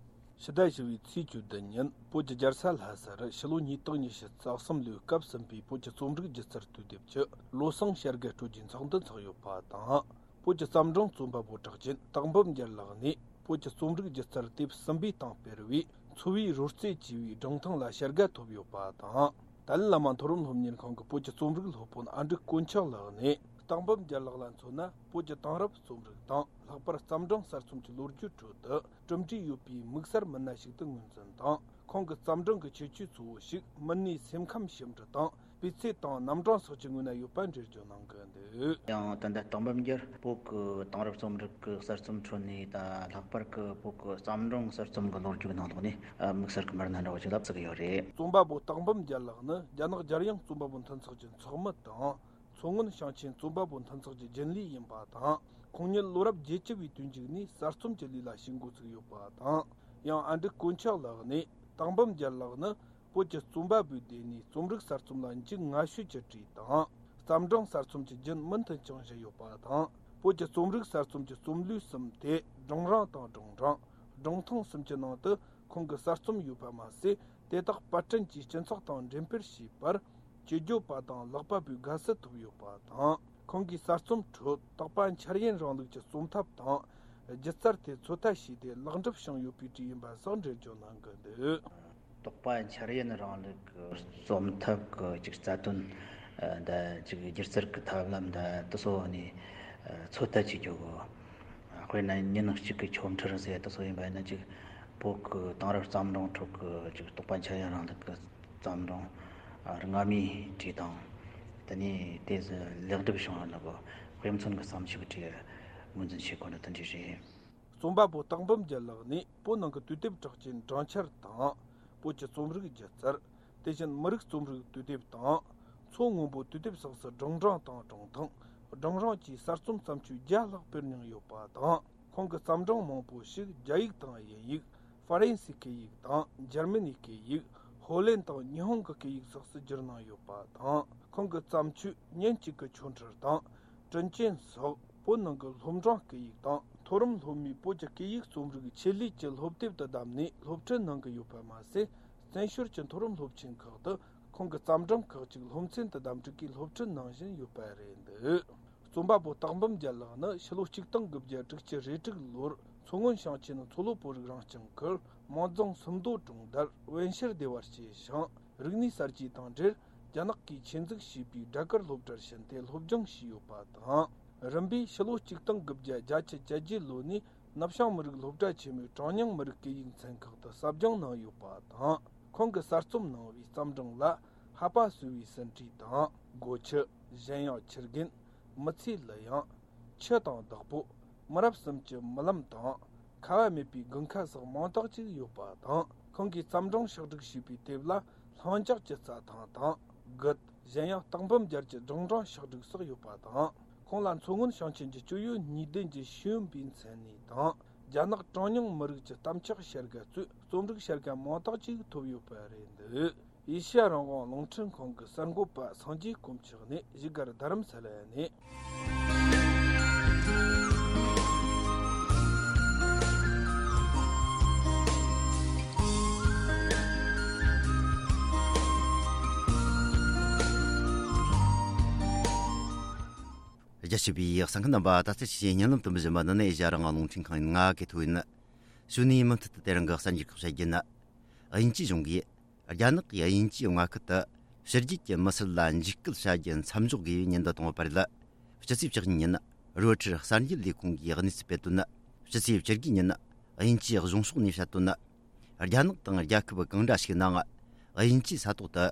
ཕྱི་ཟླ་བཞི་བའི་ཚེས་བཅུ་བདུན་ཉིན་བོད་ཀྱི་རྒྱལ་ས་ལྷ་སར་ཕྱི་ལོ་ཉིས་སྟོང་ཉི་ཤུ་རྩ་གསུམ་ལོའི་སྐབས་ཟིན་པའི་བོད་ཀྱི་རྩོམ་རིག་སྒྱུ་རྩལ་དུས་དེབ་ཀྱི་བློ་བཟང་ཤར་དགའ་སྤྲོད་རྒྱུའི་ཚོགས་འདུ་འཚོགས་ཡོད་པ་དང་། བོད་ཀྱི་བརྩམས་སྒྲུང་རྩོམ་པ་པོ་གྲགས་ཅན་སྟག་འབུམ་རྒྱལ་ལགས་ནས་བོད་ཀྱི་རྩོམ་རིག་སྒྱུ་རྩལ་དེབ་གསུམ་པའི་སྟེང་སྤེལ་བའི་འཚོ་བའི་རོལ་རྩེད་ཅེས་པའི་སྒྲུང་ཐུང་ལ་ཞལ་དགའ་ཐོབ་ཡོད་པ་དང་། ཏཱ་ལའི་བླ་མ་མཐོ་རིམ་སློབ་གཉེར་ཁང་གི་བོད་ཀྱི་རྩོམ་རིག་སློབ་དཔོན་ཨ་འབྲུག་དཀོན་མཆོག་ལགས་ནས། སྟག་འབུམ་རྒྱལ་ལགས་ལ་མཚོན་ན། བོད་ཀྱི་དེང་རབས་རྩོམ་རིག་དང་ལྷག་པར་བརྩམས་སྒྲུང་གསར་རྩོམ་གྱི་ལོ་རྒྱུས་ཁྲོད་དུ་གྲུབ་འབྲས་ཡོད་པའི་དམིགས་བསལ་མི་སྣ་ཞིག་ཏུ་ངོས་འཛིན་དང་། ཁོང་གི་བརྩམས་སྒྲུང་གི་ཁྱད་ཆོས་གཙོ་བོ་ཞིག་མི་སྣའི་སེམས་ཁམས་ཞིབ་འབྲི་དང་། སྤུས་ཚད་དང་རྣམ་གྲངས་སོགས་ཀྱི་ངོས་ན་ཡོད་པ་འགྲེལ་བརྗོད་གནང་གི་འདུག་ཡང་ད་ལྟ་སྟག་འབུམ་རྒྱལ་བོད་ཀྱི་དེང་རབས་རྩོམ་རིག་གི་གསར་རྩོམ་ཁྲོད་ནས་ད་ལྷག་པར་གྱི་བོད་ཀྱི་བརྩམས་སྒྲུང་གསར་རྩོམ་གྱི་ལོ་རྒྱུས་ནང་ལོགས་ནས་དམིགས་བསལ་གྱི་མི་སྣ་འདྲ་བོ་ཞིག་ལ་བརྩི་གི་ཡོད་རེད། རྩོམ་པ་པོ་སྟག་འབུམ་རྒྱལ་ལགས་ནི་རྒྱ་ནག་རྒྱལ་ཡོངས་རྩོམ་པ་པོ་མཐུན་ཚོགས་ཀྱི་ཚོགས་མི་དང་། མཚོ་སྔོན་ཞིང་ཆེན་རྩོམ་པ་པོ་མཐུན་ཚོགས་ཀྱི་རྒྱུན་ལས་ཡིན་པ་དང་། ཁོང་ཉིད་ལོ་རབས་བརྒྱད་ཅུ་བའི་དུས་མཇུག་ནས་གསར་རྩོམ་གྱི་ལས་ལ་ཞུགས་འགོ་ཚུགས་ཡོད་པ་དང་། ཡང་ཨ་འབྲུག་དཀོན་མཆོག་ལགས་ནས་སྟག་འབུམ་རྒྱལ་ལགས་ནི་བོད་ཀྱི་རྩོམ་པ་པོའི་སྡེ་ནས་རྩོམ་རིག་གསར་རྩོམ་ལ་འཇུག་སྔ་ཤོས་ཀྱི་གྲས་དང་། བརྩམས་སྒྲུང་གསར་རྩོམ་གྱི་རྒྱུན་མུ་མཐུད་འཆང་བཞིན་ཡོད་པ་དང་། བོད་ཀྱི་རྩོམ་རིག་གསར་རྩོམ་གྱི་རྩོམ་ལུས་གསུམ་སྟེ། སྒྲུང་རིང་དང་སྒྲུང་འབྲིང་། སྒྲུང་ཐུང་གསུམ་གྱི་ནང་དུ། ཁོང་གི་གསར་རྩོམ་ཡོད་པ་མ་ཟད། དེ་དག་པར་སྐྲུན་གྱིས་སྤྱི་ཚོགས་དང་འབྲེལ་སྤེལ་བྱས་པར། སྤྱི་བརྗོད་པ་དང་ཀློག་པ་པོའི་དགའ་བསུ་ཐོབ་ཡོད་པ་དང་། ཁོང་གིས་གསར་རྩོམ་ཁྲོད་དོགས་པ་འཆར་ཡན་རིང་ལུགས་ཀྱི་རྩོམ་ཐབས་དང་། སྒྱུ་རྩལ་དེ་ཚོད་ལྟ་བྱས་ཏེ་ལེགས་འགྲུབ་བྱུང་ཡོད་པའི་གྲས་ཡིན་པ་སོགས་འགྲེལ་བརྗོད་གནང་གི་འདུག་དོགས་པ་འཆར་ཡན་རིང་ལུགས་ཀྱི་རྩོམ་ཐབས་ཀྱི་ཅིག་རྩ་དོན་ འདི་ཅིག་སྒྱུ་རྩལ་གྱི་ཐབས་ལམ་འདི་དེ་ཚོ་ནས་ཚོད་ལྟ་བྱེད་རྒྱུ་གོ། དཔེར་ན་ཉིན་གཅིག་གི་ཆོ་འཕྲུལ་ཟེར་དེ་ཚོ་ཡིན་པ་ཡིན་ན། ཅིག་བོད་ཀྱི་དེང་རབས་བརྩམས་སྒྲུང་ཁྲོད་ཀྱི་ཅིག་རྟོགས་པ་འཆར་ཡན་རིང་ལུགས་ཀྱི་བརྩམས་སྒྲུང་སྔ་མའི་གྲས་དང་། དེ་ནས་དེ་ཚོ་ལེགས་གྲུབ་བྱུང་བ་ནི་གོ། དཔེ་མཚོན་གྱི་བརྩམས་ཆོས་ཀྱི་གྲས་ངོས་འཛིན་བྱེད་དགོས་ནི་དེ་འདྲ་རེད། རྩོམ་པ་པོ་སྟག་འབུམ་རྒྱལ་ལགས་ནས་བོད་ནང་གི་དུས་དེབ་གྲགས་ཅན་སྦྲང་ཆར་དང་། བོད་ཀྱི་རྩོམ་རིག་སྒྱུ་རྩལ། དེ་བཞིན་མི་རིགས་རྩོམ་རིག་དུས་དེབ་དང་། མཚོ་སྔོན་པོ་དུས་དེབ་སོགས་སུ་སྒྲུང་སྦྲང་དང་སྒྲུང་ཐུང་། སྒྲུང་རིང་བཅས་གསར་རྩོམ་བརྩམས་ཆོས་བརྒྱ་ལྷག་སྤེལ་མྱོང་ཡོད་པ་དང་། ཁོང་གི་བརྩམས་སྒྲུང་མང་པོ་ཞིག་རྒྱ་ཡིག་དང་དབྱིན་ཡིག་ཧྥ་རན་སིའི་སྐད་ཡིག་དང་། འཇར་མ་ནིའི་སྐད་ཡིག་ཧོ་ལན་དང་ཉི་ཧོང་གི་སྐད་ཡིག་སོགས་སུ་བསྒྱུར་གནང་ཡོད་པ་དང་། ཁོང་གི་བརྩམས་ཆོས་ཉིན་གཅིག་གི་ཆོ་འཕྲུལ་དང་། དྲིན་ཅན་སོགས་བོད་ནང་གི་སློབ་འབྲིང་སྐད་ཡིག་དང་། མཐོ་རིམ་སློབ་མའི་བོད་ཀྱི་སྐད་ཡིག་རྩོམ་རིག་ཆེད་ལས་ཀྱི་སློབ་དེབ་ཏུ་བདམས་ནས་སློབ་ཁྲིད་གནང་གི་ཡོད་པ་མ་ཟད། བཙན་བྱོལ་གྱི་མཐོ་རིམ་སློབ་ཆེན་ཁག་ཏུ་ཁོང་གི་བརྩམས་སྒྲུང་ཁག་ཅིག་སློབ་ཚན་དུ་བདམས་སྒྲིག་གིས་སློབ་ཁྲིད་གནང་བཞིན་ཡོད་པ་རེད་འདུག། རྩོམ་པ་པོ་སྟག་འབུམ་རྒྱལ་ལགས་ནི་ཕྱི་ལོ་ཆིག་སྟོང་དགུ་བརྒྱ་དྲུག་ཅུ་རེ་དྲུག་ལོར་མཚོ་སྔོན་ཞིང་ཆེན་མཚོ་ལྷོ་བོད་རིགས་རང་སྐྱོང་ཁུལ་མོན་རྫོང་སུམ་མདོ་གྲོང་རྡལ་བན་ཤེར་སྡེ་བར་སྐྱེས་ཤིང་། རིག་གནས་གསར་བརྗེ་དང་འབྲེལ་རྒྱ་ནག་གིས་ཆེད་འཛུགས་བྱས་པའི་སྦྲ་གུར་སློབ་གྲྭར་ཕྱིན་ཏེ་སློབ་སྦྱོང་བྱས་ཡོད་པ་དང་། རིམ་པས་ཕྱི་ལོ་ཆིག་སྟོང་དགུ་བརྒྱ་བརྒྱད་ཅུ་གྱ་བརྒྱད་ལོ་ནས་ནུབ་བྱང་མི་རིགས་སློབ་གྲྭ་ཆེན་མོའི་གྲངས་ཉུང་མི་རིགས་སྐད་ཡིག་ཚན་ཁག་ཏུ་ཟབ་སྦྱོང་གནང་ཡོད་པ་དང་། ཁོང་གིས་གསར་རྩོམ་གནང་བའི་བརྩམས་སྒྲུང་ལ། ཧ་པ་སོ་བའི་ཟིན་བྲིས་དང་། སྒོ་ཁྱི། གཞན་ཡང་ཁྱི་རྒན། མི་ཚེའི་གླུ་དབྱངས། ཆུ་དང་བདག་པོ། མི་རབས་གསུམ་གྱི་རྨི་ལམ་དང་། ཁ་བ་མེད་པའི་དགུན་ཁ་སོགས་མང་དག་ཅིག་ཡོད་པ་དང་། ཁོང་གིས་བརྩམས་སྒྲུང་ཕྱོགས་སྒྲིག་བྱས་པའི་དེབ་ལ། ལྷིང་འཇགས་ཀྱི་རྩྭ་ཐང་དང་། རྒུད། གཞན་ཡང་སྟག་འབུམ་རྒྱལ་གྱི་སྒྲུང་སྦྲང་ཕྱོགས་སྒྲིག་སོགས་ཡོད་པ་དང་། ཁོང་ལ་མཚོ་སྔོན་ཞིང་ཆེན་གྱི་སྤྱི་ཡོངས་གཉིས་ལྡན་གྱི་ཤེས་ཡོན་པའི་མཚན་གནས་དང་། རྒྱ་ནག་གྲངས་ཉུང་མི་རིགས་ཀྱི་གཏམ་ཕྱོགས་བྱ་དགའ་གཙོས་རྩོམ་རིག་བྱ་དགའ་མང་དག་ཅིག་ཐོབ་ཡོད་པ་རེད་འདུག། ཨེ་ཤ་ཡ་རང་དབང་རླུང་འཕྲིན་ཁང་གི་གསར་འགོད་པ་སངས་རྒྱས་དཀོན་མཆོག་ནས། བཞུགས་སྒར་རྡ་རམ་ས་ལ་ནས། རྒྱ་ཆེ་བའི་གསན་མཁན་རྣམ་པ། ད་ལྟ་ཕྱི་ཉིན་ལམ་དུ་འབུལ་བཞིན་པ་འདི་ནི་ཨེ་ཤ་ཡ་རང་དབང་རླུང་འཕྲིན་ཁང་ཡིན། ང་གི་ཐོ་ཡིན། གཞུག་ནས་མུ་མཐུད་དུ་དེ་རིང་གི་གསར་འགྱུར་ཁག་བཤད་རྒྱུ་ནི། དབྱིན་ཇིའི་གཞུང་གིས་རྒྱ་ནག་གིས་དབྱིན་ཇིའི་མངའ་ཁུལ་དུ་ཕྱི་རྒྱལ་གྱི་མི་སེར་ལ་འཇིགས་སྐུལ་བྱ་རྒྱུ་མཚམས་འཇོག་དགོས་པའི་ཉེན་བརྡ་བཏང་ཡོད་པ་རེད། སྤྱི་ཚེས་བཅུ་གཉིས་ཉིན་རོའི་ཊར་གསར་འགྱུར་ལས་ཁུངས་ཀྱིས་གནས་ཚུལ་སྤེལ་དོན། སྤྱི་ཚེས་བཅུ་དགུ་ཉིན་དབྱིན་ཇིའི་གཞུང་ཕྱོགས་ནས་བཤད་དོན། རྒྱ་ནག་དང་རྒྱལ་ཁབ་གང་འདྲ་ཞིག་ནང་། དབྱིན་ཇིའི་ས་ཐོག་ཏུ་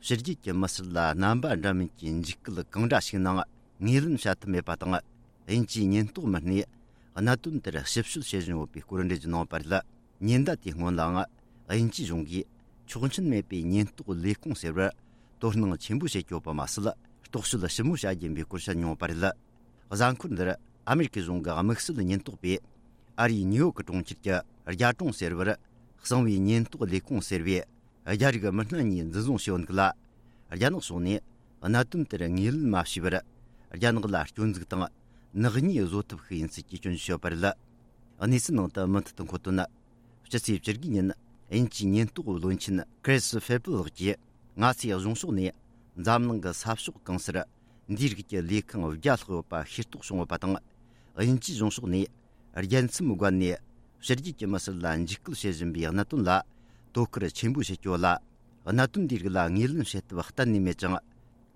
ཕྱི་རྒྱལ་གྱི་མི་སེར་ལ་རྣམ་པ་འདྲ་མིན་གྱི་འཇིགས་སྐུལ་གང་འདྲ་ཞིག་ནང་ངོས་ལེན་བྱ་ཐུབ་མེད་པ་དང་། དབྱིན་ཇིའི་ཉེན་རྟོག་མི་སྣས་གནད་དོན་དེར་ཞིབ་དཔྱོད་བྱེད་བཞིན་ཡོད་པའི་སྐོར་འགྲེལ་བརྗོད་གནང་བ་རེད། ཉེན་བརྡ་དེའི་སྔོན་ལའང་། དབྱིན་ཇིའི་གཞུང་གིས་ཆོག་མཆན་མེད་པའི་ཉེན་རྟོག་ལས་ཁུངས་ཟེར་བར་དོ་སྣང་ཆེན་པོ་བྱེད་ཀྱི་ཡོད་པ་མ་ཟད། རྟོག་དཔྱོད་ཞིབ་མོ་བྱ་རྒྱུ་ཡིན་པའི་སྐོར་བཤད་མྱོང་བ་རེད། གཟའ་འཁོར་འདིར་ཨ་མེ་རི་ཁའི་གཞུང་གི་དམིགས་བསལ་ཉེན་རྟོག་པས་ཨ་རིའི་ནིའུ་ཡོག་གི་གྲོང་ཁྱེར་གྱི་རྒྱ་གྲོང་ཟེར་བར་གསང་བའི་ཉེན་རྟོག་ལས་ཁུངས་ཟེར་བའི་རྒྱ་རིགས་མི་སྣ་གཉིས་འཛིན་བཟུང་བྱས་ཡོད་འདུག་ལ། རྒྱ་ནག་ཕྱོགས་ནས་གནད་དོན་དེར་ངོས་ལེན་མ་བྱས་པར། རྒྱ་ནག་ལ་སྐྱོན་འཛུགས་དང་ནག་ཉེས་བཟོ་ཐབས་ཤིག་ཡིན་ཚུལ་གྱི་སྐྱོན་བརྗོད་བྱས་ཡོད་པ་རེད། གནས་ཚུལ་ནང་དུ་མུ་མཐུད་དུ་འཁོད་དོན། སྤྱི་ཚེས་བཅུ་དགུ་ཉིན་དབྱིན་ཇིའི་ཉེན་རྟོག་བློན་ཆེན་ཁྲིས་ཧྥེ་པི་ལགས་ཀྱིས། ང་ཚོའི་གཞུང་ཕྱོགས་ནས་འཛམ་གླིང་གི་ས་ཕྱོགས་གང་སར་འདིའི་རིགས་ཀྱི་ལས་ཁུངས་བརྒྱ་ལྷག་ཡོད་པ་ཤེས་རྟོགས་བྱུང་ཡོད་པ་དང་། དབྱིན་ཇིའི་གཞུང་ཕྱོགས་ནས་རྒྱལ་མཚམས་བརྒལ་ནས་ཕྱི་རྒྱལ་གྱི་མི་སེར་ལ་འཇིགས་སྐུལ་བྱེད་བཞིན་པའི་གནད་དོན་ལ་དོ་ཁུར་ཆེན་པོ་བྱེད་ཀྱི་ཡོད་ལ། གནད་དོན་འདིའི་རིགས་ལ་ངོས་ལེན་བྱེད་ཐབས་གཏན་ནས་མེད་ཅིང་།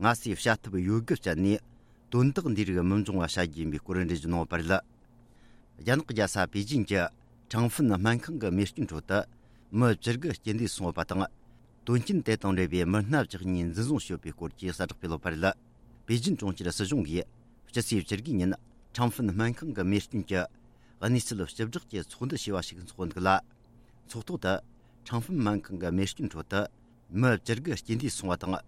ང་ཚོས་བྱ་ཐབས་ཡོད་དགུ་སྤྱད་ནས་དོན་དག་འདིའི་རིགས་མི་འབྱུང་བ་བྱ་རྒྱུ་ཡིན་པའི་སྐོར་འགྲེལ་བརྗོད་གནང་ཡོད་པ་རེད། རྒྱ་ནག་རྒྱལ་ས་པེ་ཅིན་གྱི་ཁྲང་ཧྥིན་སྨན་ཁང་གི་རྨས་སྐྱོན་ཁྲོད་དུ་མི་བཅུ་དགུ་རྐྱེན་འདས་སོང་བ་དང་། དོན་རྐྱེན་དེ་དང་འབྲེལ་བའི་མི་སྣ་བཅུ་གཉིས་འཛིན་བཟུང་བྱས་ཡོད་པའི་སྐོར་གྱི་གསལ་བསྒྲགས་སྤེལ་ཡོད་པ་རེད། པེ་ཅིན་གྲོང་ཁྱེར་སྲིད་གཞུང་གིས་སྤྱི་ཚེས་བཅུ་དགུ་ཉིན་ཁྲང་ཧྥིན་སྨན་ཁང་གི་རྨས་སྐྱོན་གྱི་གནས་ཚུལ་ལ་ཞིབ་བསྒྲགས་ཀྱི་ཚོགས་འདུ་ཞེས་པ་ཞིག་འཚོགས་འདུག་ལ། ཚོགས་ཐོག་ཏུ་ཁྲང་ཧྥིན་སྨན་ཁང་གི་རྨས་སྐྱོན་ཁྲོད་དུ་མི་བཅུ་དགུ་རྐྱེན་འདས་སོང་བ་དང་།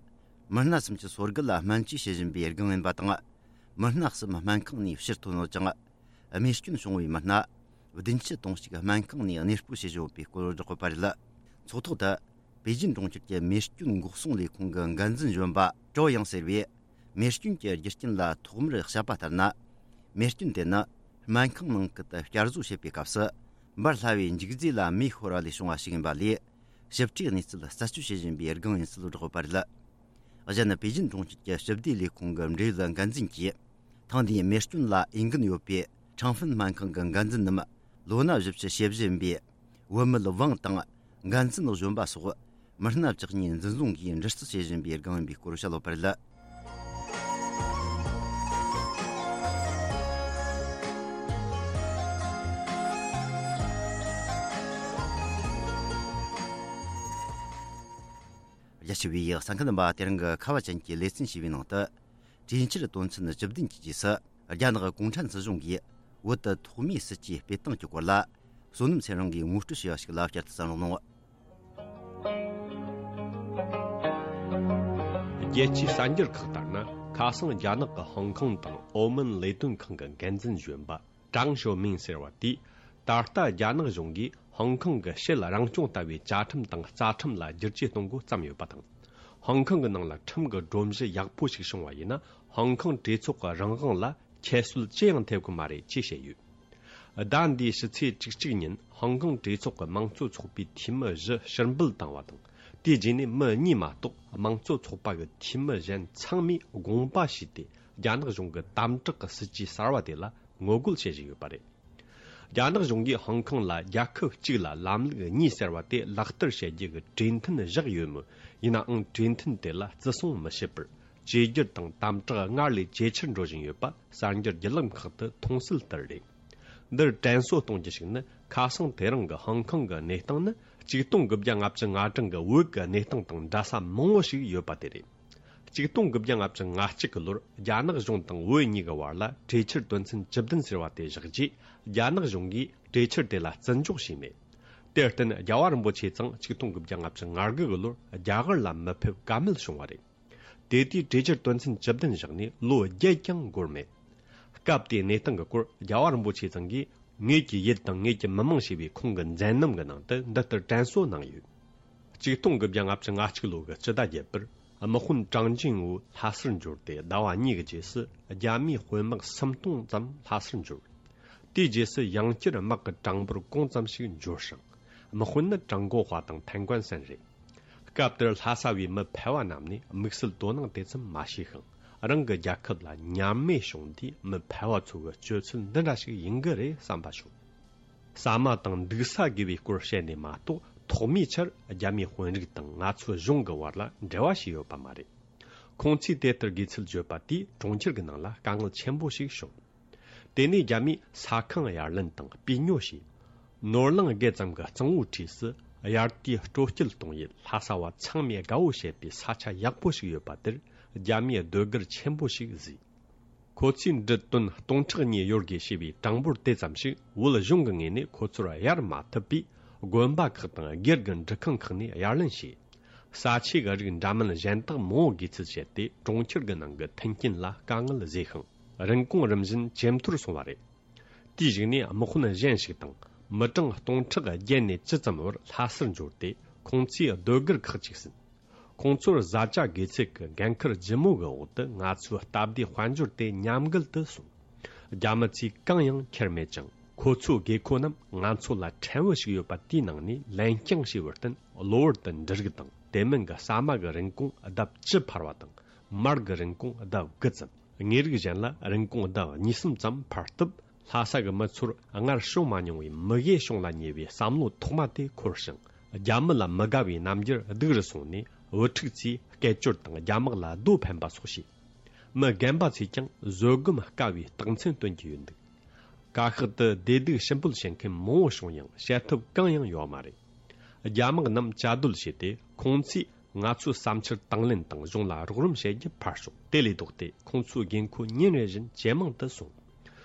མི་སྣ་གསུམ་གྱི་སྲོག་སྐད་ལ་སྨན་བཅོས་བྱེད་བཞིན་པའི་སྒང་ཡིན་པ་དང་། མི་སྣ་གསུམ་སྨན་ཁང་ནས་ཕྱིར་ཐོན་ཡོད་ཅིང་། རྨས་སྐྱོན་བྱུང་བའི་མི་སྣ་བདུན་ཅུ་དོན་གཅིག་སྨན་ཁང་ནས་གནས་སྤོ་བྱེད་བཞིན་ཡོད་པའི་སྐོར་བསྒྲགས་ཡོད་པ་རེད། ཚོགས་ཐོག་ཏུ་པེ་ཅིན་གྲོང་ཁྱེར་གྱི་རྨས་སྐྱོན་འགོག་སྲུང་ལས་ཁུངས་ཀྱི་འགན་འཛིན་གཞོན་པ་ཀྲོ་ཡང་ཟེར་བས། རྨས་སྐྱོན་གྱི་རྒྱུ་རྐྱེན་ལ་ཐོག་མར་བཤད་པ་ལྟར་ན། རྨས་སྐྱོན་དེ་ནི་སྨན་ཁང་ནང་ཁུལ་དུ་བསྐྱར་བཟོ་བྱེད་པའི་སྐབས་སུ་འབར་སླ་བའི་འཇིག་རྫས་ལ་མེ་ཤོར་བ་ལས་བྱུང་བ་ཞིག་ཡིན་པ་ལས། ཞིབ་ཕྲའི་གནས་ཚུལ་རྩད་གཅོད་བྱེད་བཞིན་པའི་སྒང་ཡིན་ཚུལ་བསྒྲགས་ཡོད་པ་རེད། གཞན། པེ་ཅིན་གྲོང་ཁྱེར་གྱི་སྤྱི་བདེ་ལས་ཁུངས་ཀྱི་འབྲེལ་ཡོད་འགན་འཛིན་གྱིས། ཐེངས་འདིའི་རྨས་སྐྱོན་ལ་འོས་འགན་ཡོད་པའི་ཁྲང་ཧྥིན་སྨན་ཁང་གི་འགན་འཛིན་རྣམས་ལོ་ན་བཞི་བཅུ་ཞེ་བཞི་ཡིན་པའི་བུད་མེད་ཝང་དང་འགན་འཛིན་གཞོན་པ་སོགས་མི་སྣ་བཅུ་གཉིས་འཛིན་བཟུང་གིས་འདྲི་རྩད་བྱེད་བཞིན་པའི་སྒང་ཡིན་པའི་སྐོར་བཤད་ཡོད་པ་རེད། རྒྱ་ཆེ་བའི་གསན་མཁན་རྣམ་པ། དེ་རིང་གི་ཁ་བ་ཅན་གྱི་ལེ་ཚན་ཞེས་པའི་ནང་དུ། གྲོས་འཆར་དོན་ཚན་བཅུ་བདུན་གྱི་རྗེས་སུ། རྒྱ་ནག་གུང་ཁྲན་སྲིད་གཞུང་གིས་བོད་དུ་ཐོག་མའི་སྲིད་ཇུས་སྤེལ་སྟངས་ཀྱི་སྐོར་ལ། བསོད་ནམས་ཚེ་རིང་གིས་ངོ་སྤྲོད་བྱས་པ་ཞིག་ལ་བསྐྱར་དུ་གསན་རོགས་གནང་། རྒྱལ་སྤྱིའི་གསར་འགྱུར་ཁག་ལྟར་ན། ཁ་སང་རྒྱ་ནག་གི་ཧོང་ཀོང་དང་ཨོ་མན་ལས་དོན་ཁང་གི་འགན་འཛིན་གཞོན་པ་ཀྲང་ཞོ་མིང་ཟེར་བ་དེས། ད་ལྟ་རྒྱ་ནག་གཞུང་གིས་ཧོང་ཀོང་གི་ཕྱེད་རང་སྐྱོང་ལྟ་བུའི་བཅའ་ཁྲིམས་དང་རྩ་ཁྲིམས་ལ་བསྒྱུར་བཅོས་གཏོང་འགོ་བརྩམས་ཡོད་པ་དང་། ཧོང་ཀོང་གི་ནང་ལ་ཁྲིམས་ཀྱི་སྒྲོམ་གཞི་ཡག་པོ་ཞིག་བྱུང་བ་ཡིན་ན། ཧོང་ཀོང་གྲོས་ཚོགས་ཀྱི་རང་དབང་ལ་ཁྱད་གསོད་ཅི་ཡང་ཐེབས་ཀྱི་མ་རེད་ཅེས་བཤད་ཡོད། ཟླ་འདིའི་ཕྱི་ཚེས་བཅུ་གཅིག་ཉིན་ཧོང་ཀོང་གྲོས་ཚོགས་ཀྱི་དམངས་གཙོ་ཚོགས་པའི་འཐུས་མི་བཞི་ཕྱིར་འབུད་བཏང་བ་དང་། དེའི་རྗེས་ནས་མི་གཉིས་མ་གཏོགས་དམངས་གཙོ་ཚོགས་པ་གི་འཐུས་མི་གཞན་ཚང་མས་དགོངས་པ་ཞུས་ཏེ། རྒྱ་ནག་གཞུང་གི་དམ་དྲག་གི་སྲིད་ཇུས་གསར་བ་དེ་ལ་ངོ་རྒོལ་བྱེད་བཞིན་ཡོད་པ་རེད། རྒྱ་ནག་གཞུང་གིས་ཧོང་ཀོང་ལ་རྒྱལ་ཁབ་གཅིག་ལ་ལམ་ལུགས་གཉིས་ཟེར་བ་དེ་ལག་བསྟར་བྱེད་རྒྱུ་གི་གྲོས་མཐུན་བཞག་ཡོད་མོད། ཡིན་ནའང་གྲོས་མཐུན་དེ་ལ་བརྩི་སྲུང་མི་བྱེད་པར། བཅོས་བསྒྱུར་དང་དམ་དྲག་སྔར་ལས་ཇེ་ཆེར་འགྲོ་བཞིན་ཡོད་པ་གསར་འགྱུར་བརྒྱུད་ལམ་ཁག་ཏུ་མཐོང་གསལ་ལྟར་རེད། འདིར་དྲན་གསོ་གཏོང་རྒྱུ་ཞིག་ནི། ཁ་སང་དེ་རིང་གི་ཧོང་ཀོང་གི་གནས་སྟངས་ནི། ཆིག་སྟོང་དགུ་བརྒྱ་ལྔ་བཅུ་ང་གྲངས་ཀྱི་བོད་ཀྱི་གནས་སྟངས་དང་འདྲ་ས་མང་བོ་ཞིག་ཡོད་པ་དེ་རེད། ཆིག་སྟོང་དགུ་བརྒྱ་ལྔ་བཅུ་ང་གཅིག་གི་ལོར་རྒྱ་ནག་གཞུང་དང་བོད་གཉིས་ཀྱི་བར་ལ་གྲོས་འཆར་དོན་ཚན་བཅུ་བདུན་ཟེར་བ་དེ་བཞག་རྗེས། རྒྱ་ནག་གཞུང་གིས་གྲོས་འཆར་དེ་ལ་བརྩི་འཇོག་བྱས་མེད། དེར་བརྟེན་རྒྱལ་བ་རིན་པོ་ཆེ་ཚང་ཆིག་སྟོང་དགུ་བརྒྱ་ལྔ་བཅུ་ང་དགུ་གི་ལོར་རྒྱ་གར་ལ་མི་ཕེབས་ཀ་མེད་བྱུང་བ་རེད། དེ་དུས་གྲོས་འཆར་དོན་ཚན་བཅུ་བདུན་བཞག་ནས་ལོ་བརྒྱད་ཀྱང་འགོར་མེད། སྐབས་དེའི་གནས་སྟངས་ཀྱི་སྐོར་རྒྱལ་བ་རིན་པོ་ཆེ་ཚང་གིས། ངེད་ཀྱི་ཡུལ་དང་ངེད་ཀྱི་མི་མང་ཞེས་པའི་ཁོང་གི་མཛད་རྣམ་གྱི་ནང་དུ་འདི་ལྟར་དྲན་གསོ་གནང་ཡོད། ཆིག་སྟོང་དགུ་བརྒྱ་ལྔ་བཅུ་ང་གཅིག་ལོ་གི་སྤྱི་ཟླ་བརྒྱད་པར་དམག་དཔོན་ཀྲང་ཅིན་ཝུ་ལྷ་སར་འབྱོར་ཏེ་ཟླ་བ་གཉིས་ཀྱི་རྗེས་སུ་རྒྱ་མིའི་དཔོན་དམག་སུམ་སྟོང་ཙམ་ལྷ་སར་འབྱོར། དེའི་རྗེས་སུ་ཡང་བསྐྱར་དམག་གི་གྲངས་འབོར་གོང་ཙམ་ཞིག་འབྱོར་ཞིང་། དམག་དཔོན་ནི་ཀྲང་གོ་ཧྭ་དང་ཐན་ཀོན་སན་རེད། སྐབས་དེར་ལྷ་ས་བའི་མི་ཕལ་བ་རྣམས་ནས་དམིགས་བསལ་དོ་སྣང་དེ་ཙམ་མ་བྱས་ཤིང་། རང་གི་རྒྱལ་ཁབ་ལ་ཉམས་དམས་བྱུང་དུས་མི་ཕལ་བ་ཚོ་གི་སྤྱོད་ཚུལ་འདི་འདྲ་ཞིག་ཡིན་གྱི་རེད་བསམ་པ་བྱུང་། ཟ་མ་དང་འདུག་ས་དགོས་པའི་སྐོར་བཤད་ནས་མ་གཏོགས། ཐོག་མའི་ཆར་རྒྱ་མིའི་དཔོན་རིགས་དང་ང་ཚོའི་གཞུང་གི་བར་ལ་འབྲེལ་བ་ཞིག་ཡོད་པ་མ་རེད། ཁོང་ཚོས་དེ་ལྟར་དགོས་ཚུལ་བརྗོད་པ་དེས་གྲོང་ཁྱེར་གྱི་ནང་ལ་དཀའ་ངལ་ཆེན་པོ་ཞིག་བྱུང་། དེ་ནས་རྒྱ་མིས་ས་ཁང་གཡར་ལེན་དང་སྤུས་ཉོ་བྱས། ནོར་གླིང་བརྒལ་ཙམ་གྱི་གཙང་བོའི་འཁྲིས་སུ་དབྱར་དུས་སྤྲོ་སྐྱིད་གཏོང་ཡུལ་ལྷ་ས་བ་ཚང་མས་དགའ་བོ་བྱེད་པའི་ས་ཆ་ཡག་པོ་ཞིག་ཡོད་པ་དེར་རྒྱ་མིས་ཟློས་གར་ཆེན་པོ་ཞིག་བཟོས། ཁོ་ཚོས་འབྲུ་ཏོན་སྟོང་ཕྲག་གཉིས་ཡོད་དགོས་ཞེས་པའི་གྲངས་འབོར་དེ་ཙམ་ཞིག་བོད་གཞུང་གི་ངོས་ནས་ཁོ་ཚོར་གཡར་མ་ཐུབ་པས། དགོན་པ་ཁག་དང་སྒེར་གྱི་འབྲུ་ཁང་ཁག་ནས་གཡར་ལེན་བྱས། ས་ཆའི་རིགས་འདྲ་མིན་གཞན་དག་མང་བོ་དགོས་ཚུལ་བཤད་དེ། གྲོང་ཁྱེར་གྱི་ནང་གི་མཐུན་རྐྱེན་ལ་དཀའ་ངལ་བཟོས་ཤིང་། རིན་གོང་རིམ་བཞིན་ཇེ་མཐོར་སོང་བ་རེད། དེའི་གཞུག་ནས་དམག་དཔོན་གཞན་ཞིག་དང་། མི་གྲངས་སྟོང་ཕྲག་བརྒྱད་ནས་བཅུ་ཙམ་བར་ལྷ་སར་འབྱོར་ཏེ། ཁོང་ཚོས་ཟློས་གར་ཁག་ཅིག་ཟིན། ཁོང་ཚོར་བཟའ་བཅའ་དགོས་ཚད་ཀྱི་འགན་ཁུར་ལྗིད་མོ་གི་འོག་ཏུ། ང་ཚོའི་སྟབས་བདེ་དཔལ་འབྱོར་དེ་ཉམས་རྒུད་དུ་སོང་། རྒྱ་མི་ཚོས་གང་ཡང་ཁྱེར་མེད་ཅིང་། ཁོ་ཚོའི་དགོས་མཁོ་རྣམས་ང་ཚོ་ལ་ཕྲན་བུ་ཞིག་ཡོད་པ་དེའི་ནང་ནས་ལེན་རྐྱང་བྱས་པར་བརྟེན། གློ་བུར་དུ་འབྲུ་རིགས་དང་དེ་མིན་གྱི་ཟ་མ་གི་རིན་གོང་ལྡབ་བཅུ་འཕར་བ་དང་། མར་གྱི་རིན་གོང་ལྡབ་དགུ་ཙམ། དངོས་རིགས་གཞན་ལ་རིན་གོང་ལྡབ་གཉིས་གསུམ་ཙམ་འཕར་སྟབས། ལྷ་ས་གི་མི་ཚོར་སྔར་བྱུང་མ་མྱོང་བའི་མི་དགེ་བྱུང་ལ་ཉེ་བའི་བསམ་བློ་ཐོག་མ་དེ་འཁོར་ཞིང་། རྒྱ་མི་ལ་མི་དགའ་བའི་རྣམ་འགྱུར་སྡུག་རུ་སོང་ནས། བུ་ཕྲུག་ཚོས་སྐད་ཅོར་དང་རྒྱ་དམག་ལ་རྡོ་འཕེན་པ་སོགས་བྱས། མི་རྒན་པ་ཚོས་ཀྱང་བཟོད་སྒོམ་དཀའ་བའི་རྟགས་མཚན་སྟོན་གྱི་ཡོད་འདུག། བཀའ་ཤག་ཏུ་བདེ་སྡུག་ཞིབ་འབུལ་བྱེད་མཁན་མང་བོ་བྱུང་ཡང་བྱེད་ཐབས་གང་ཡང་ཡོད་མ་རེད། རྒྱ་དམག་རྣམས་བཅའ་སྡོད་བྱས་ཏེ། ཁོང་ཚོས་ང་ཚོའི་བསམ་འཆར་དང་ལེན་དང་གཞུང་ལ་རོགས་རམ་བྱེད་རྒྱུ་ཕར་ཞོག། དེ་ལས་ལྡོག་སྟེ་ཁོང་ཚོའི་དགོས་མཁོ་ཉིན་རེ་བཞིན་ཇེ་མང་དུ་སོང་།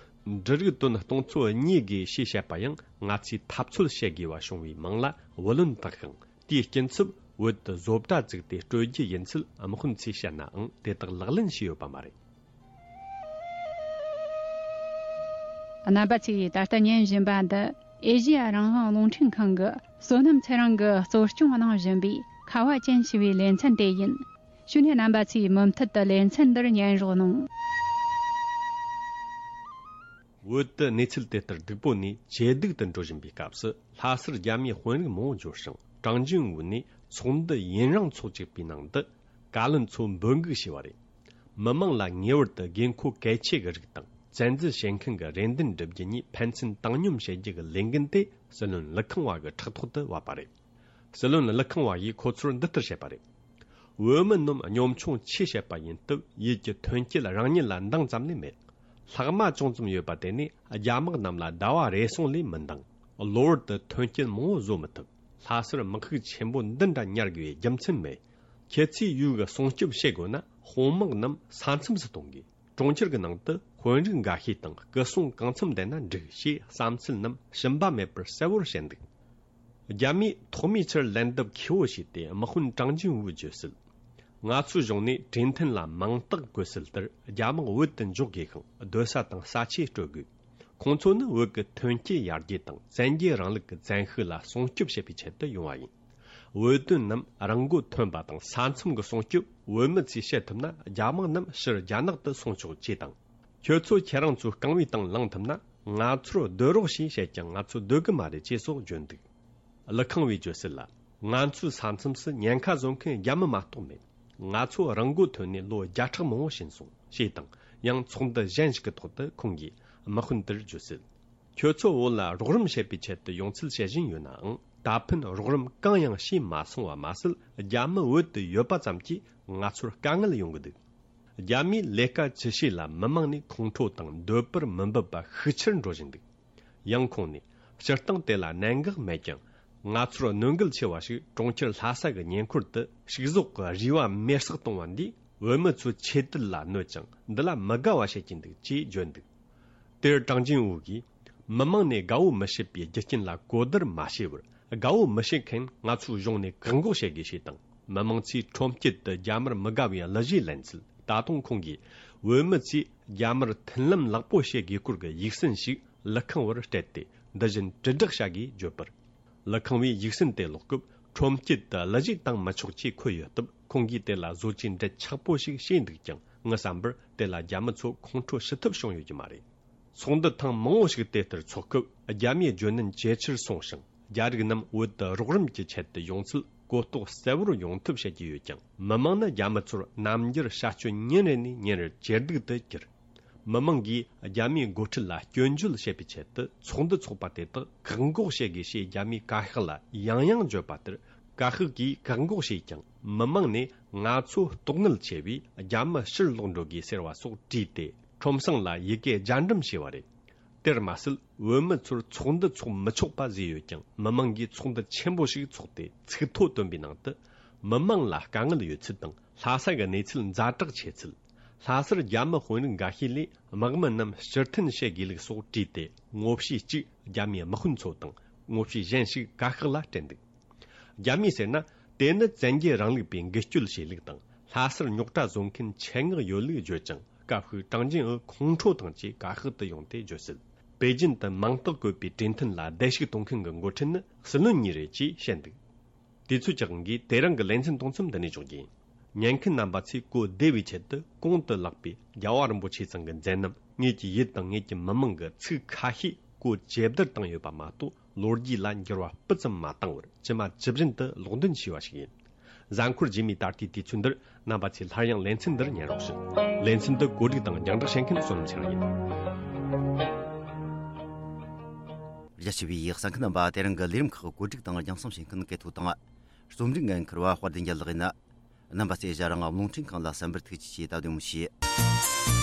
འབྲུ་རིགས་ཏོན་སྟོང་ཚོ་གཉིས་དགོས་ཞེས་བཤད་པ་ཡང་། ང་ཚོས་འཐབ་རྩོད་བྱེད་དགོས་པ་བྱུང་བའི་མིང་ལ་བུ་ལོན་བཏགས་ཤིང་། དེའི་སྐྱིན་ཚབ་བོད་དུ་བཟོ་གྲྭ་བཙུགས་ཏེ་སྤྲོད་རྒྱུ་ཡིན་ཚུལ་དམག་དཔོན་ཚོས་བཤད་ནའང་། དེ་དག་ལག་ལེན་བྱས་ཡོད་པ་མ་རེད། རྣམ་པ་ཚོས་ད་ལྟ་ཉན་བཞིན་པ་འདི། ཨེ་ཤེ་ཡ་རང་དབང་རླུང་འཕྲིན་ཁང་གི་བསོད་ནམས་ཚེ་རིང་གིས་གཙོ་སྐྱོང་གནང་བཞིན་པའི་ཁ་བ་ཅན་ཞེས་པའི་ལེ་ཚན་དེ་ཡིན། བྱས་ནས་རྣམ་པ་ཚོས་མུ་མཐུད་དུ་ལེ་ཚན་འདིར་ཉན་རོགས་གནང་། བོད་དུ་གནས་ཚུལ་དེ་ལྟར་སྡུག་པོ་ནས་ཇེ་སྡུག་ཏུ་འགྲོ་བཞིན་པའི་སྐབས་སུ། ལྷ་སར་རྒྱ་མིའི་དཔོན་རིགས་མང་བོ་འབྱོར་ཞིང་། ཀྲང་ཅིན་ཝུ་ནས་ཚོགས་འདུ་ཡུན་རིང་ཚོགས་བཅུག་པའི་ནང་དུ། བཀའ་བློན་ཚོ་འབོད་འགུག་བྱས་པ་རེད། མི་མང་ལ་ངེས་པར་དུ་དགོས་མཁོ་གལ་ཆེ་གི་རིགས་དང་། བཙན་འཛུལ་བྱེད་མཁན་གྱི་རེ་འདུན་སྒྲུབ་རྒྱུ་གཉིས་ཕན་ཚུན་བཏང་སྙོམས་བྱེད་རྒྱུ་གི་ལས་འགན་དེ་སྲིད་བློན་ཀླུ་ཁང་བ་གི་ཕྲག་ཐོག་ཏུ་བབས་པ་རེད། སྲིད་བློན་ཀླུ་ཁང་བ་ཡིས་ཁོ་ཚོར་འདི་ལྟར་བཤད་པ་རེད། བོད་མི་རྣམས་གཉོམ་ཆུང་ཆེ་བྱེད་པ་ཡིན་སྟབས། ཡུལ་གྱི་ཐོན་སྐྱེད་རང་ཉིད་ལ་འདང་ཙམ་ལས་མེད། ལྷག་མ་ཅུང་ཙམ་ཡོད་པ་དེ་ནི་རྒྱ་དམག་རྣམས་ལ་ཟླ་བ་རེ་ཟུང་ལས་མི་འདང་། གློ་བུར་དུ་ཐོན་སྐྱེད་མང་བོ་བཟོ་མི་ཐུབ། ལྷ་སར་དམག་ཤུགས་ཆེན་པོ་འདི་འདྲ་ཉར་དགོས་པའི་རྒྱུ་མཚན་མེད། ཁྱེད་ཚོས་ཡུལ་གི་སྲུང་སྐྱོབ་བྱེད་དགོས་ན། དཔུང་དམག་རྣམས་ས་མཚམས་སུ་གཏོང་དགོས། གྲོང་ཁྱེར་གྱི་ནང་དུ་དཔོན་རིགས་འགའ་ཤས་དང་སྐུ་སྲུང་གང་འཚམ་བསྡད་ན་འགྲིག་ཞེས་བསམ་ཚུལ་རྣམས་ཞུམ་པ་མེད་པར་གསལ་བོར་བཤད་འདུག། རྒྱ་མིས་ཐོག་མའི་ཆར་ལན་འདེབས་མཁས་པོ་བྱས་ཏེ། དམག་དཔོན་ཀྲང་ཅིན་ཝུས་བརྗོད་གསལ། ང་ཚོའི་གཞུང་ནས་གྲོས་མཐུན་ལ་མིང་རྟགས་བཀོད་གསལ་ལྟར། རྒྱ་དམག་བོད་དུ་འཇོག་དགོས་ཤིང་། སྡོད་ས་དང་ས་ཆས་སྤྲོད་དགོས། ཁོང་ཚོ་ནི་བོད་ཀྱི་ཐོན་སྐྱེད་ཡར་རྒྱས་དང་བཙན་རྒྱལ་རིང་ལུགས་ཀྱི་བཙན་ཤེད་ལ་སྲུང་སྐྱོབ་བྱེད་པའི་ཆེད་དུ་ཡོང་བ་ཡིན། བོད་དོན་རྣམས་རང་མགོ་ཐོན་པ་དང་ས་མཚམས་ཀྱི་སྲུང་སྐྱོབ་བོད་མི་ཚོས་བྱེད་ཐུབ་ན། རྒྱ་དམག་རྣམས་ཕྱིར་རྒྱ་ནག་ཏུ་སོང་ཆོག་ཅེས་དང་། ཁྱོད་ཚོ་ཁྱེད་རང་ཚོའི་རྐང་བའི་སྟེང་ལངས་ཐུབ་ན། ང་ཚོར་སྡོད་རོགས་ཞེས་བཤད་ཀྱང་། ང་ཚོ་སྡོད་གི་མ་རེད་ཅེས་སོགས་བརྗོད་འདུག། ལི་ཁང་བའི་བརྗོད་གསལ་ལ། ང་ཚོའི་ས་མཚམས་སུ་ཉེན་ཁ་བཟོ་མཁན་རྒྱ་མི་མ་གཏོགས་མེད། ང་ཚོ་རང་མགོ་ཐོན་ནས་ལོ་བརྒྱ་ཕྲག་མང་པོ་ཕྱིན་སོང་ཞེས་དང་། ཡང་ཚོགས་འདུ་གཞན་ཞིག་གི་ཐོག་ཏུ་ཁོང་གིས་དམག་དཔོན་དེར་བརྗོད་གསལ། ཁྱོད་ཚོ་བོད་ལ་རོགས་རམ་བྱེད་པའི་ཆེད་དུ་ཡོང་ཚུལ་བཤད་བཞིན་ཡོད་ནའང་། ད་ཕན་རོགས་རམ་གང་ཡང་བྱས་མ་སོང་བ་མ་ཟད། རྒྱ་མི་བོད་དུ་ཡོད་པ་ཙམ་གྱིས་ང་ཚོར་དཀའ་ངལ་ཡོང་གི་འདུག། རྒྱ་མིས་ལས་ཀ་ཅི་བྱས་ལ་མི་མང་ནས་ཁོང་ཁྲོ་དང་འདོད་པར་མི་འབབ་པ་ཤུགས་ཆེར་འགྲོ་བཞིན་འདུག། ཡང་ཁོང་ནས། སྤྱིར་བཏང་དེ་ལ་གནད་འགག་མེད་ཀྱང་། ང་ཚོར་གནོད་འགེལ་ཆེ་བ་ཞིག་གྲོང་ཁྱེར་ལྷ་ས་གི་ཉེ་འཁོར་དུ་ཕྱུགས་ཟོག་གི་རུས་པ་མེར་སྲེག་གཏོང་བ་འདིས་བོད་མི་ཚོའི་ཆོས་དད་ལ་གནོད་ཅིང་། འདི་ལ་མི་དགའ་བ་བྱེད་ཀྱིན་འདུག་ཅེས་བརྗོད་འདུག། དེར་ཀྲང་ཅིན་ཝུ་གིས། མི་མང་ནས་དགའ་བོ་མི་བྱེད་པའི་རྒྱུ་རྐྱེན་ལ་གོ་བསྡུར་མ་བྱས་པར། དགའ་བོ་མི་བྱེད་མཁན་ང་ཚོའི་གཞུང་ནས་བཀག་འགོག་བྱེད་དགོས་ཞེས་དང་། མི་མང་ཚོས་ཁྲོམ་དཀྱིལ་དུ་རྒྱ་དམར་མི་དགའ་བའི་གླུ་གཞས་ལེན་ཚུལ། ད་དུང་ཁོང་གིས། བོད་མི་ཚོས་རྒྱ་དམར་མཐུན་ལམ་ལེགས་པོ་བྱེད་དགོས་སྐོར་གྱི་ཡིག་ཟིན་ཞིག་ལི་ཁང་བར་སྤྲད་དེ། འདི་བཞིན་དྲིལ་བསྒྲགས་བྱ་དགོས་བརྗོད་པར། ལི་ཁང་བས་ཡིག་ཟིན་དེ་ཀློག་སྐབས། ཁྲོམ་དཀྱིལ་དུ་གླུ་གཞས་བཏང་མི་ཆོག་ཅེས་འཁོད་ཡོད་སྟབས། ཁོང་གིས་དེ་ལ་བཟོ་བཅོས་འབྲེལ་ཆགས་པོ་ཞིག་བྱས་འདུག་ཀྱང་། ངའི་བསམ་པར་དེ་ལ་རྒྱ་མི་ཚོ་ཁོང་ཁྲོ་ཞི་ཐབས་བྱུང་ཡོད་ཀྱི་མ་རེད། ཚོགས་འདུ་ཐེངས་མང་པོ་ཞིག་དེ་ལྟར་འཚོགས་སྐབས། རྒྱ་མིའི་བརྗོད་ནན་ཇེ་ཆེར་སོང་ཞིང་། རྒྱ་རིགས་རྣམས་བོད་དུ་རོགས་རམ་གྱི་ཆེད་དུ་ཡོང་ཚུལ་གོ་རྟོགས་གསལ་བོར་ཡོང་ཐབས་བྱེད་ཀྱི་ཡོད་ཀྱང་། མི་མང་ནི་རྒྱ་མི་ཚོར་རྣམ་འགྱུར་བྱ་སྤྱོད་ཉིན་རེ་ནས་ཉིན་རེར་ཇེ་སྡུག་ཏུ་གྱུར། མི་མང་གིས་རྒྱ་མིའི་འགོ་ཁྲིད་ལ་སྐྱོན་བརྗོད་བྱེད་པའི་ཆེད་དུ་ཚོགས་འདུ་འཚོགས་པ་དེ་དག་བཀག་འགོག་བྱེད་དགོས་ཞེས་རྒྱ་མིའི་བཀའ་ཤག་ལ་ཡང་ཡང་བརྗོད་པ་ལྟར། བཀའ་ཤག་གིས་བཀག་འགོག་བྱས་ཀྱང་། མི་མང་ནས་ང་ཚོ་ལྟོགས་ནད་ཆེ་བས་རྒྱ་མི་ཕྱིར་ལོག་འགྲོ་དགོས་ཟེར་བ་སོགས་བྲིས་ཏེ། ཁྲོམ་སྲང་ལ་ཡི་གེ་རྒྱ་འགྲེམས་བྱས་པ་རེད། དེར་མ་ཟད། བོད་མི་ཚོར་ཚོགས་འདུ་འཚོགས་མི་ཆོག་པ་བཟོས་ཡོད་ཀྱང་། མི་མང་གིས་ཚོགས་འདུ་ཆེན་པོ་ཞིག་འཚོགས་ཏེ། ཚིག་ཐོ་བཏོན་པའི་ནང་དུ། མི་མང་ལ་དཀའ་ངལ་ཡོད་ཚུལ་དང་། ལྷ་ས་གི་གནས་ཚུལ་ཛ་དྲག་ཆེ་ཚུལ། ལྷ་སར་རྒྱ་མི་དཔོན་རིགས་འགའ་ཤས་ལས་དམག་མི་རྣམས་ཕྱིར་འཐེན་བྱེད་དགོས་ལུགས་སོགས་བྲིས་ཏེ། ངོ་བཤུས་གཅིག་རྒྱ་མིའི་དམག་དཔོན་ཚོ་དང་། ངོ་བཤུས་གཞན་ཞིག་བཀའ་ཤག་ལ་སྤྲད་འདུག། རྒྱ་མིས་ཟེར་ན། དེ་ནི་བཙན་རྒྱལ་རིང་ལུགས་པས་འགུལ་སྐྱོད་བྱས་ལུགས་དང་། ལྷ་སར་རྙོག་དྲ་བཟོ་མཁན་ཆེད་མངགས་ཡོད་ལུགས་བརྗོད་ཅིང་། སྐབས་ཤིག་ཀྲང་ཅིན་ཨུ་ཁོང་ཁྲོ་དང་བཅས་བཀའ་ཤག་ཏུ་ཡོང་སྟེ་བརྗོད་གསལ། པེ་ཅིན་དུ་མིང་རྟགས་བཀོད་པའི་གྲོས་མཐུན་ལ་བརྡལ་བཤིག་གཏོང་མཁན་གྱི་འགོ་ཁྲིད་ནི་སྲིད་བློན་གཉིས་རེད་ཅེས་བཤད་འདུག། དུས་ཚོད་ཀྱི་དབང་གིས་དེ་རིང་གི་ལེ་ཚན་གཏོང་མཚམས་འདི་ནས་འཇོག་རྒྱུ་ཡིན། ཉན་མཁན་རྣམ་པ་ཚོས་གོ་བདེ་བའི་ཆེད་དུ་གོང་དུ་ལགས་པའི་རྒྱལ་བ་རིན་པོ་ཆེ་ཚང་གི་མཛད་རྣམ། ངེད་ཀྱི་ཡུལ་དང་ངེད་ཀྱི་མི་མང་གི་ཚིག་ཁ་ཤས་གོ་ཇེ་བསྡུར་བཏང་ཡོད་པ་མ་གཏོགས། ལོ་རྒྱུས་ལ་འགྱུར་བ་སྤུ་ཙམ་མ་བཏང་བར་ཇི་མ་ཇི་བཞིན་དུ་ལོག་འདོན་བྱས་པ་ཞིག་ཡིན། གཟའ་འཁོར་རྗེས་མའི་ད་ལྟའི་དུས་ཚོད་འདིར་རྣམ་པ་ཚོས་སླར་ཡང་ལེ་ཚན་འདིར་ཉན་རོགས་ཞུ། ལེ་ཚན་འདི་གོ་སྒྲིག་དང་རྒྱང་བསྒྲགས་བྱེད་མཁན་བསོད་ནམས་ཚེ་རིང་ཡིན། རྒྱ་ཆེ་བའི་གསན་མཁན་རྣམ་པ། དེ་རིང་གི་ལས་རིམ་ཁག་གོ་སྒྲིག་དང་རྒྱང་སྲིང་བྱེད་མཁན་སྐལ་ཐོ་དང་། རྩོམ་སྒྲིག་འགན་འཁུར་བ་དཔལ་ལྡན་རྒྱལ་ལགས་ཡིན། རྣམ་པ་ཚོས་ཞལ་རང་རླུང་འཕྲིན་ཁང་ལ་གསན་པར་ཐུགས་རྗེ་ཆེ། ད་དུང་མི་ཤེས།